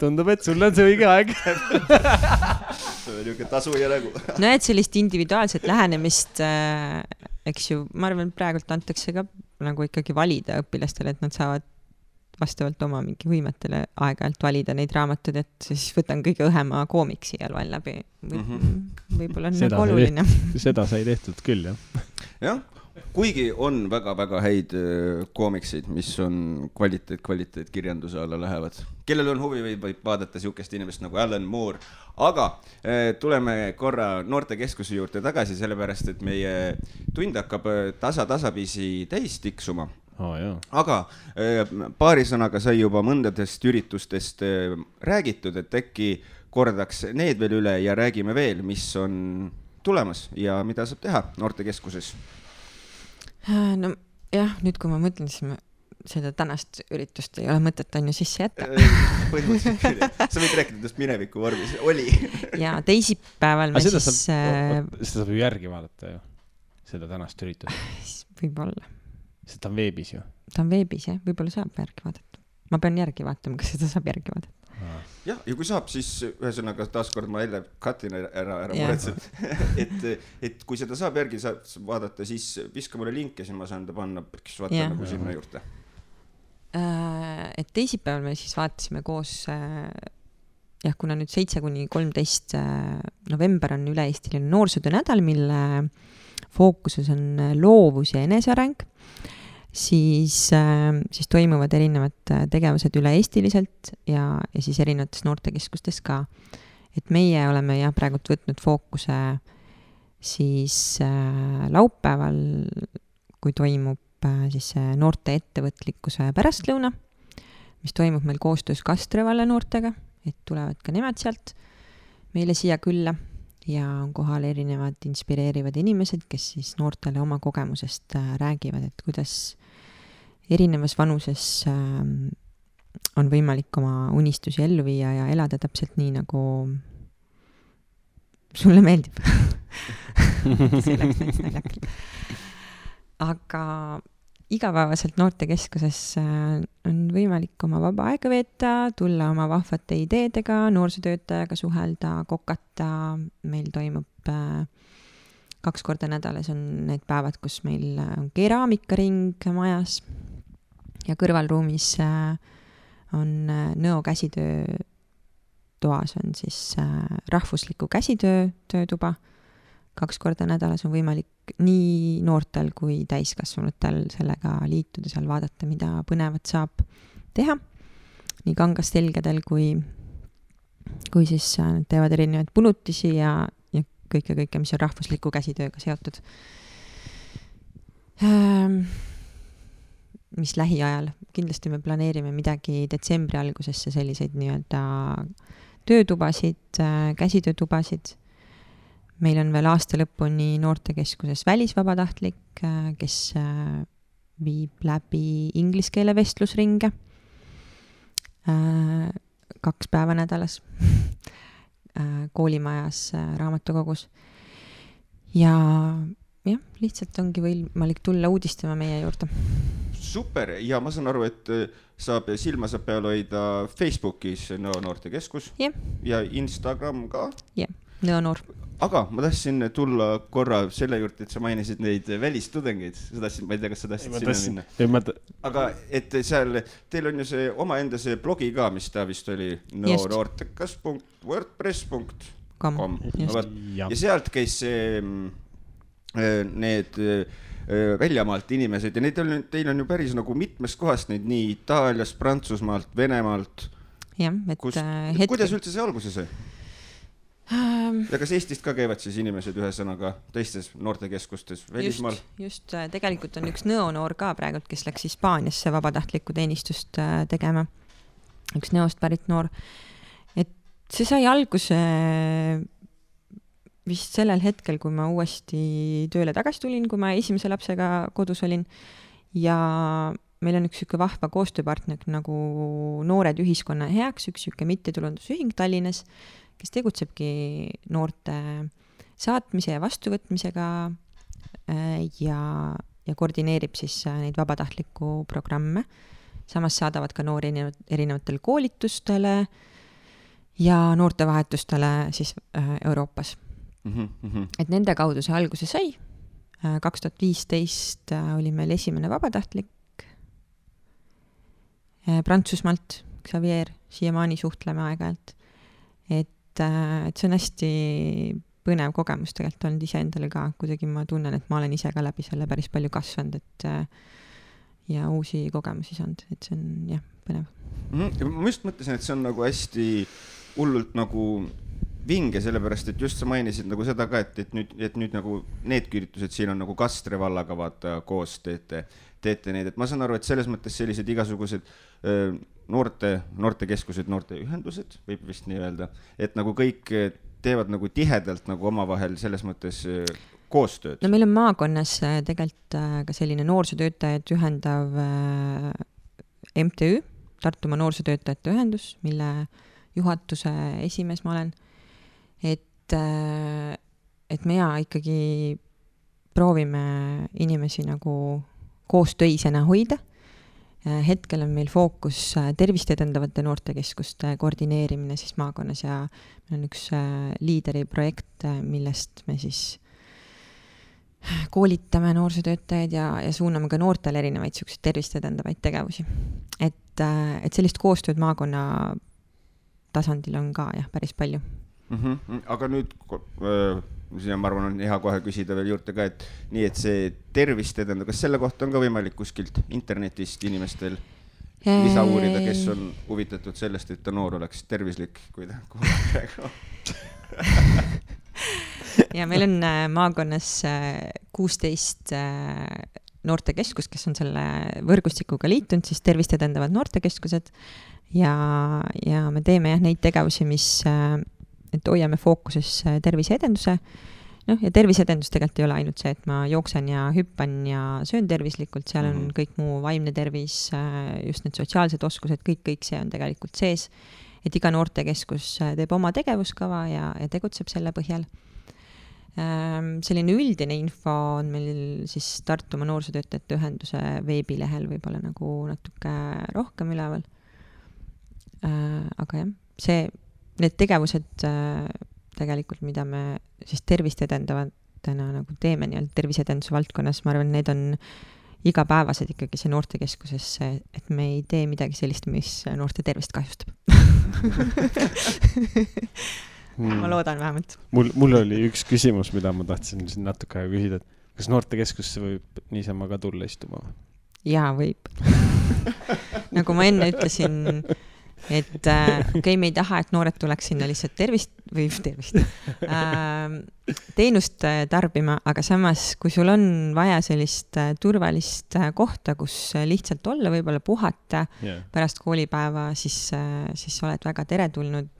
tundub, et sul on see õige aeg. See on niisugune tasuja nägu. No et sellist individuaalset lähenemist, eks ju, ma arvan, praegult antakse ka nagu ikkagi valida õpilastele, et nad saavad vastavalt oma mingi võimetele aeg-ajalt valida neid raamatud, et siis võtan kõige õhema koomiksi ja loen läbi. Võib-olla on nagu oluline. Seda sai tehtud küll, jah. Jah, kuigi on väga-väga häid koomiksid, mis on kvaliteet kirjanduse alla lähevad. Kellel on huvi võib vaadata siukest inimest nagu Alan Moore. Aga tuleme korra Noortekeskuse juurde tagasi, sellepärast, et meie tund hakkab tasapisi täis tiksuma. Aga paari sõnaga sai juba mõndadest üritustest räägitud, et äkki kordaks need veel üle ja räägime veel, mis on tulemas ja mida saab teha Noortekeskuses. No jah, nüüd kui ma mõtlen, siis seda tänast üritust ei ole mõtet on ju sisse jätta. Põhimõtteliselt küll. Sa võid rääkida tõest mineviku vormis. Oli. Ja teisipäeval me seda saab ju järgi vaadata ju, seda tänast üritust. Võib-olla. See ta on veebis ju. Ta on veebis, jah. Võib-olla saab järgi vaadata. Ma pean järgi vaatama, kas seda saab järgi vaadata. Jah, ja kui saab, siis ühesõnaga taaskord ma jälle katin ära muretselt. Et kui seda saab järgi vaadata, siis viska mulle link ja siis ma saan ta panna, kes vaata nagu sinna juurde. Et teisipäeval me siis vaatasime koos, kuna nüüd 7-13 november on üle-eestiline noorsootöö nädal, mille fookuses on loovus ja eneseareng, siis toimuvad erinevad tegevused üle-eestiliselt ja siis erinevates noortekeskustes ka. Et meie oleme praegult võtnud fookuse siis laupäeval, kui toimub siis noorte ettevõtlikkuse pärastlõuna, mis toimub meil koostöös Kastrevalle noortega, et tulevad ka nemad sealt meile siia külla ja on kohal erinevad inspireerivad inimesed, kes siis noortele oma kogemusest räägivad, et kuidas erinevas vanuses on võimalik oma unistusi ellu viia ja elada täpselt nii, nagu sulle meeldib. See läks näiteks naljakalt. Aga igapäevaselt Noortekeskuses on võimalik oma vaba aega veeta, tulla oma vahvate ideedega, noorsootöötajaga suhelda, kokata. Meil toimub 2 korda nädalas on need päevad, kus meil on keraamikaring majas ja kõrvalruumis on Nõo käsitöö toas on siis rahvusliku käsitöö töötuba. 2 korda nädalas on võimalik nii noortel kui täiskasvanutel sellega liituda, seal vaadata, mida põnevat saab teha. Nii kangastelgedel kui siis teevad erinevaid punutisi ja kõike, mis on rahvusliku käsitööga seotud. Mis lähiajal, kindlasti me planeerime midagi detsembri algusesse, selliseid nii-öelda töötubasid, käsitöötubasid. Meil on veel aasta lõpuni noortekeskuses välisvabatahtlik, kes viib läbi ingliskeele vestlusringe 2 päeva nädalas koolimajas raamatukogus. Ja jah, lihtsalt ongi võimalik tulla uudistama meie juurde. Super, ja ma saan aru, et silma saab peal hoida Facebookis Nõo noortekeskus ja Instagram ka. Jah, Nõo noor. Aga ma tahtsin tulla korra selle juurde, et sa mainisid neid välistudengeid. Ma ei tea, kas sa tahtsid sinna minna. Aga et seal, teil on ju see omaenda see blogi ka, mis ta vist oli noortekas.wordpress.com. Ja sealt käis need väljamaalt inimesed ja teil on ju päris nagu mitmest kohast neid nii Itaaliast, Prantsusmaalt, Venemaalt. Jah, kuidas üldse see alguse sai? Ja kas Eestist ka käivad siis inimesed ühesõnaga teistes noortekeskustes välismaal? Just, tegelikult on üks Nõo noor ka praegult, kes läks Hispaaniasse vabatahtlikku teenistust tegema. Üks Nõost pärit noor. Et see sai alguse vist sellel hetkel, kui ma uuesti tööle tagasi tulin, kui ma esimese lapsega kodus olin. Ja meil on üks süke vahva koostööpartner nagu Noored ühiskonna heaks, üks süke mittetulundusühing Tallinnas, kes tegutsebki noorte saatmise ja vastuvõtmisega ja koordineerib siis neid vabatahtlikku programme. Samas saadavad ka noori erinevatel koolitustele ja noortevahetustele siis Euroopas. Et nende kaudu see alguse sai. 2015 oli meil esimene vabatahtlik Prantsusmaalt, Xavier, siiamaani suhtleme aeg-ajalt. Et see on hästi põnev kogemus tegelikult olnud ise endale ka, kuidagi ma tunnen, et ma olen ise ka läbi selle päris palju kasvanud, ja uusi kogemusi saanud, et see on jah, põnev. Ma just mõtlesin, et see on nagu hästi hullult nagu vinge, sellepärast, et just sa mainisid nagu seda ka, et nüüd nagu need üritused siin on nagu Kastre vallaga vaata koos teete neid, et ma saan aru, et selles mõttes sellised igasugused noortekeskused, noorteühendused, võib vist nii öelda, et nagu kõik teevad nagu tihedalt nagu omavahel selles mõttes koostööd. No meil on maakonnas tegelikult ka selline noorsootöötajad ühendav MTÜ, Tartumaa noorsootöötajate ühendus, mille juhatuse esimees ma olen. Et meie ikkagi proovime inimesi nagu koostöisena hoida. Hetkel on meil fookus tervist edendavate noortekeskuste koordineerimine siis maakonnas ja meil on üks liideri projekt, millest me siis koolitame noorsootöötajaid ja suuname ka noortele erinevaid tervist edendavaid tegevusi. Et sellist koostööd maakonna tasandil on ka jah, päris palju. Aga nüüd siin ma arvan on hea kohe küsida veel juurde ka, et nii, et see tervist edendab, kas selle kohta on ka võimalik kuskilt internetist inimestel lisa uurida, kes on huvitatud sellest, et ta noor oleks tervislik, kui ta praegu ja meil on maakonnas 16 noortekeskus, kes on selle võrgustikuga liitunud, siis tervist edendavad noortekeskused ja me teeme jah neid tegevusi, mis et hoiame fookuses terviseedenduse. Ja terviseedendus tegelikult ei ole ainult see, et ma jooksen ja hüppan ja söön tervislikult, seal on kõik muu vaimne tervis, just need sotsiaalsed oskused, kõik see on tegelikult sees, et iga noortekeskus teeb oma tegevuskava ja tegutseb selle põhjal. Selline üldine info on meil siis Tartumaa noorsootöötajate ühenduse veebilehel võib-olla nagu natuke rohkem üleval. Aga jah, need tegevused tegelikult, mida me siis tervist edendavad noortena nagu teeme nii-öelda terviseedenduse valdkonnas, ma arvan, need on igapäevased ikkagi see noortekeskuses, et me ei tee midagi sellist, mis noorte tervist kahjustab. Ma loodan vähemalt. Mul oli üks küsimus, mida ma tahtsin siin natuke aega küsida, et kas noortekeskusse võib niisama ka tulla istuma? Jaa, võib. Nagu ma enne ütlesin, et me ei taha, et noored tuleks sinna lihtsalt teenust tarbima, aga samas, kui sul on vaja sellist turvalist kohta, kus lihtsalt olla, võib-olla puhata pärast koolipäeva, siis oled väga teretulnud.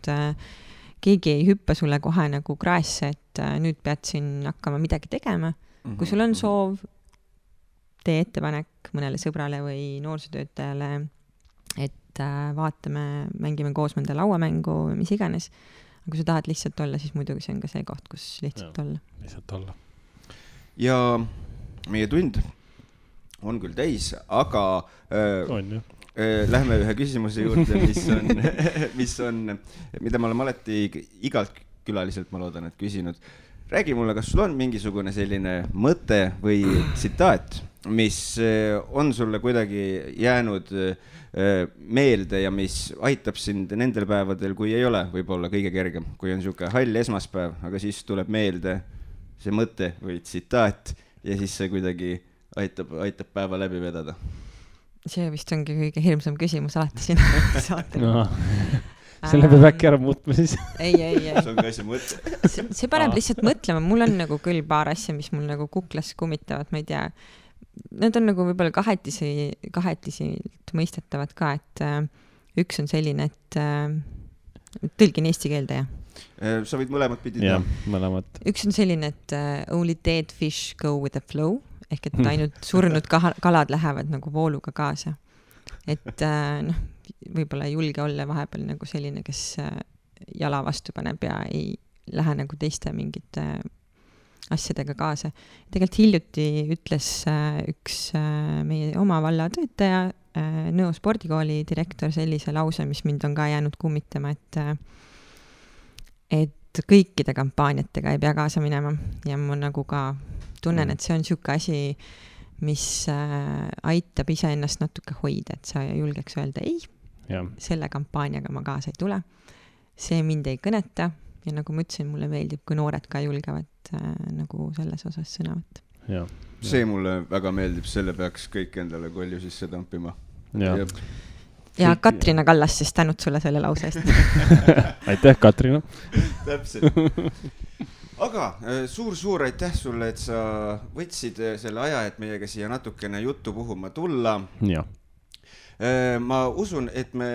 Keegi ei hüppa sulle kohe nagu kraesse, et nüüd pead siin hakkama midagi tegema. Kui sul on soov, tee ettepanek mõnele sõbrale või noorsootöötajale, et vaatame, mängime koos mõnda lauamängu, mis iganes. Aga kui sa tahad lihtsalt olla, siis muidugi see on ka see koht, kus lihtsalt olla. Lihtsalt olla. Ja meie tund on küll täis, aga lähme ühe küsimuse juurde, mida ma olen alati igalt külaliselt, ma loodan, et küsinud. Räägi mulle, kas sul on mingisugune selline mõte või tsitaat, mis on sulle kuidagi jäänud meelde ja mis aitab sind nendel päevadel, kui ei ole võib-olla kõige kergem, kui on niisugune hall esmaspäev, aga siis tuleb meelde see mõte või tsitaat ja siis see kuidagi aitab päeva läbi vedada. See vist ongi kõige hirmsam küsimus alati siin saatel. No. Selle peab äkki ära muutma siis. Ei. See on ka asi mõte. See paneb lihtsalt mõtlema. Mul on nagu küll paar asja, mis mul nagu kuklas kummitavad, ma ei tea. Need on nagu võib-olla kahetisilt mõistetavad ka, et üks on selline, et tõlgin eesti keelde, jah. Sa võid mõlemad pidid. Jah, mõlemad. Üks on selline, et only dead fish go with the flow, ehk et ainult surnud kalad lähevad nagu vooluga kaasa. Et võib-olla ei julge olla vahepeal nagu selline, kes jala vastu paneb ja ei lähe nagu teiste mingite asjadega kaasa. Tegelikult hiljuti ütles üks meie oma valla töötaja, Nõo spordikooli direktor sellise lause, mis mind on ka jäänud kummitama, et kõikide kampaaniatega ei pea kaasa minema ja ma nagu ka tunnen, et see on niisugune asi, mis aitab iseennast natuke hoida, et sa julgeks öelda ei, selle kampaaniaga ma kaasa ei tule. See mind ei kõneta ja nagu ma ütlesin, mulle meeldib, kui noored ka julgevad nagu selles osas sõna võtta. See mulle väga meeldib, selle peaks kõik endale kolju sisse tampima. Ja Katrina Kallas siis tänud sulle selle lause eest. Aitäh, Katrina. Täpselt. Aga suur aitäh sulle, et sa võtsid selle aja, et meiega siia natukene juttu puhuma tulla. Ja. Ma usun, et me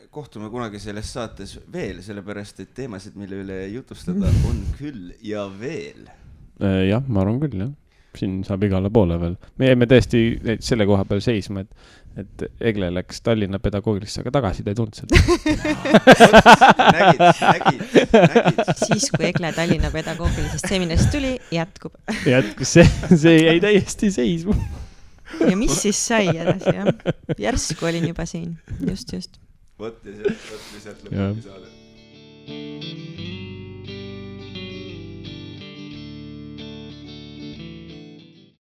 kohtume kunagi selles saates veel, sellepärast, et teemasid, mille üle jutustada on küll ja veel. Jah, ma arvan küll, jah. Siin saab igale poole veel. Me jäime tõesti selle koha peal seisma, et Egle läks Tallinna pedagoogilisse, aga tagasi ta ei tulnud seda. Nägid. Siis, kui Egle Tallinna pedagoogilisest seminarist tuli, jätkub. Jätkus, see jäi täiesti seisma. Ja mis siis sai edasi, jah? Järsku olin juba siin, just. Võt ja sealt lõpugi saade.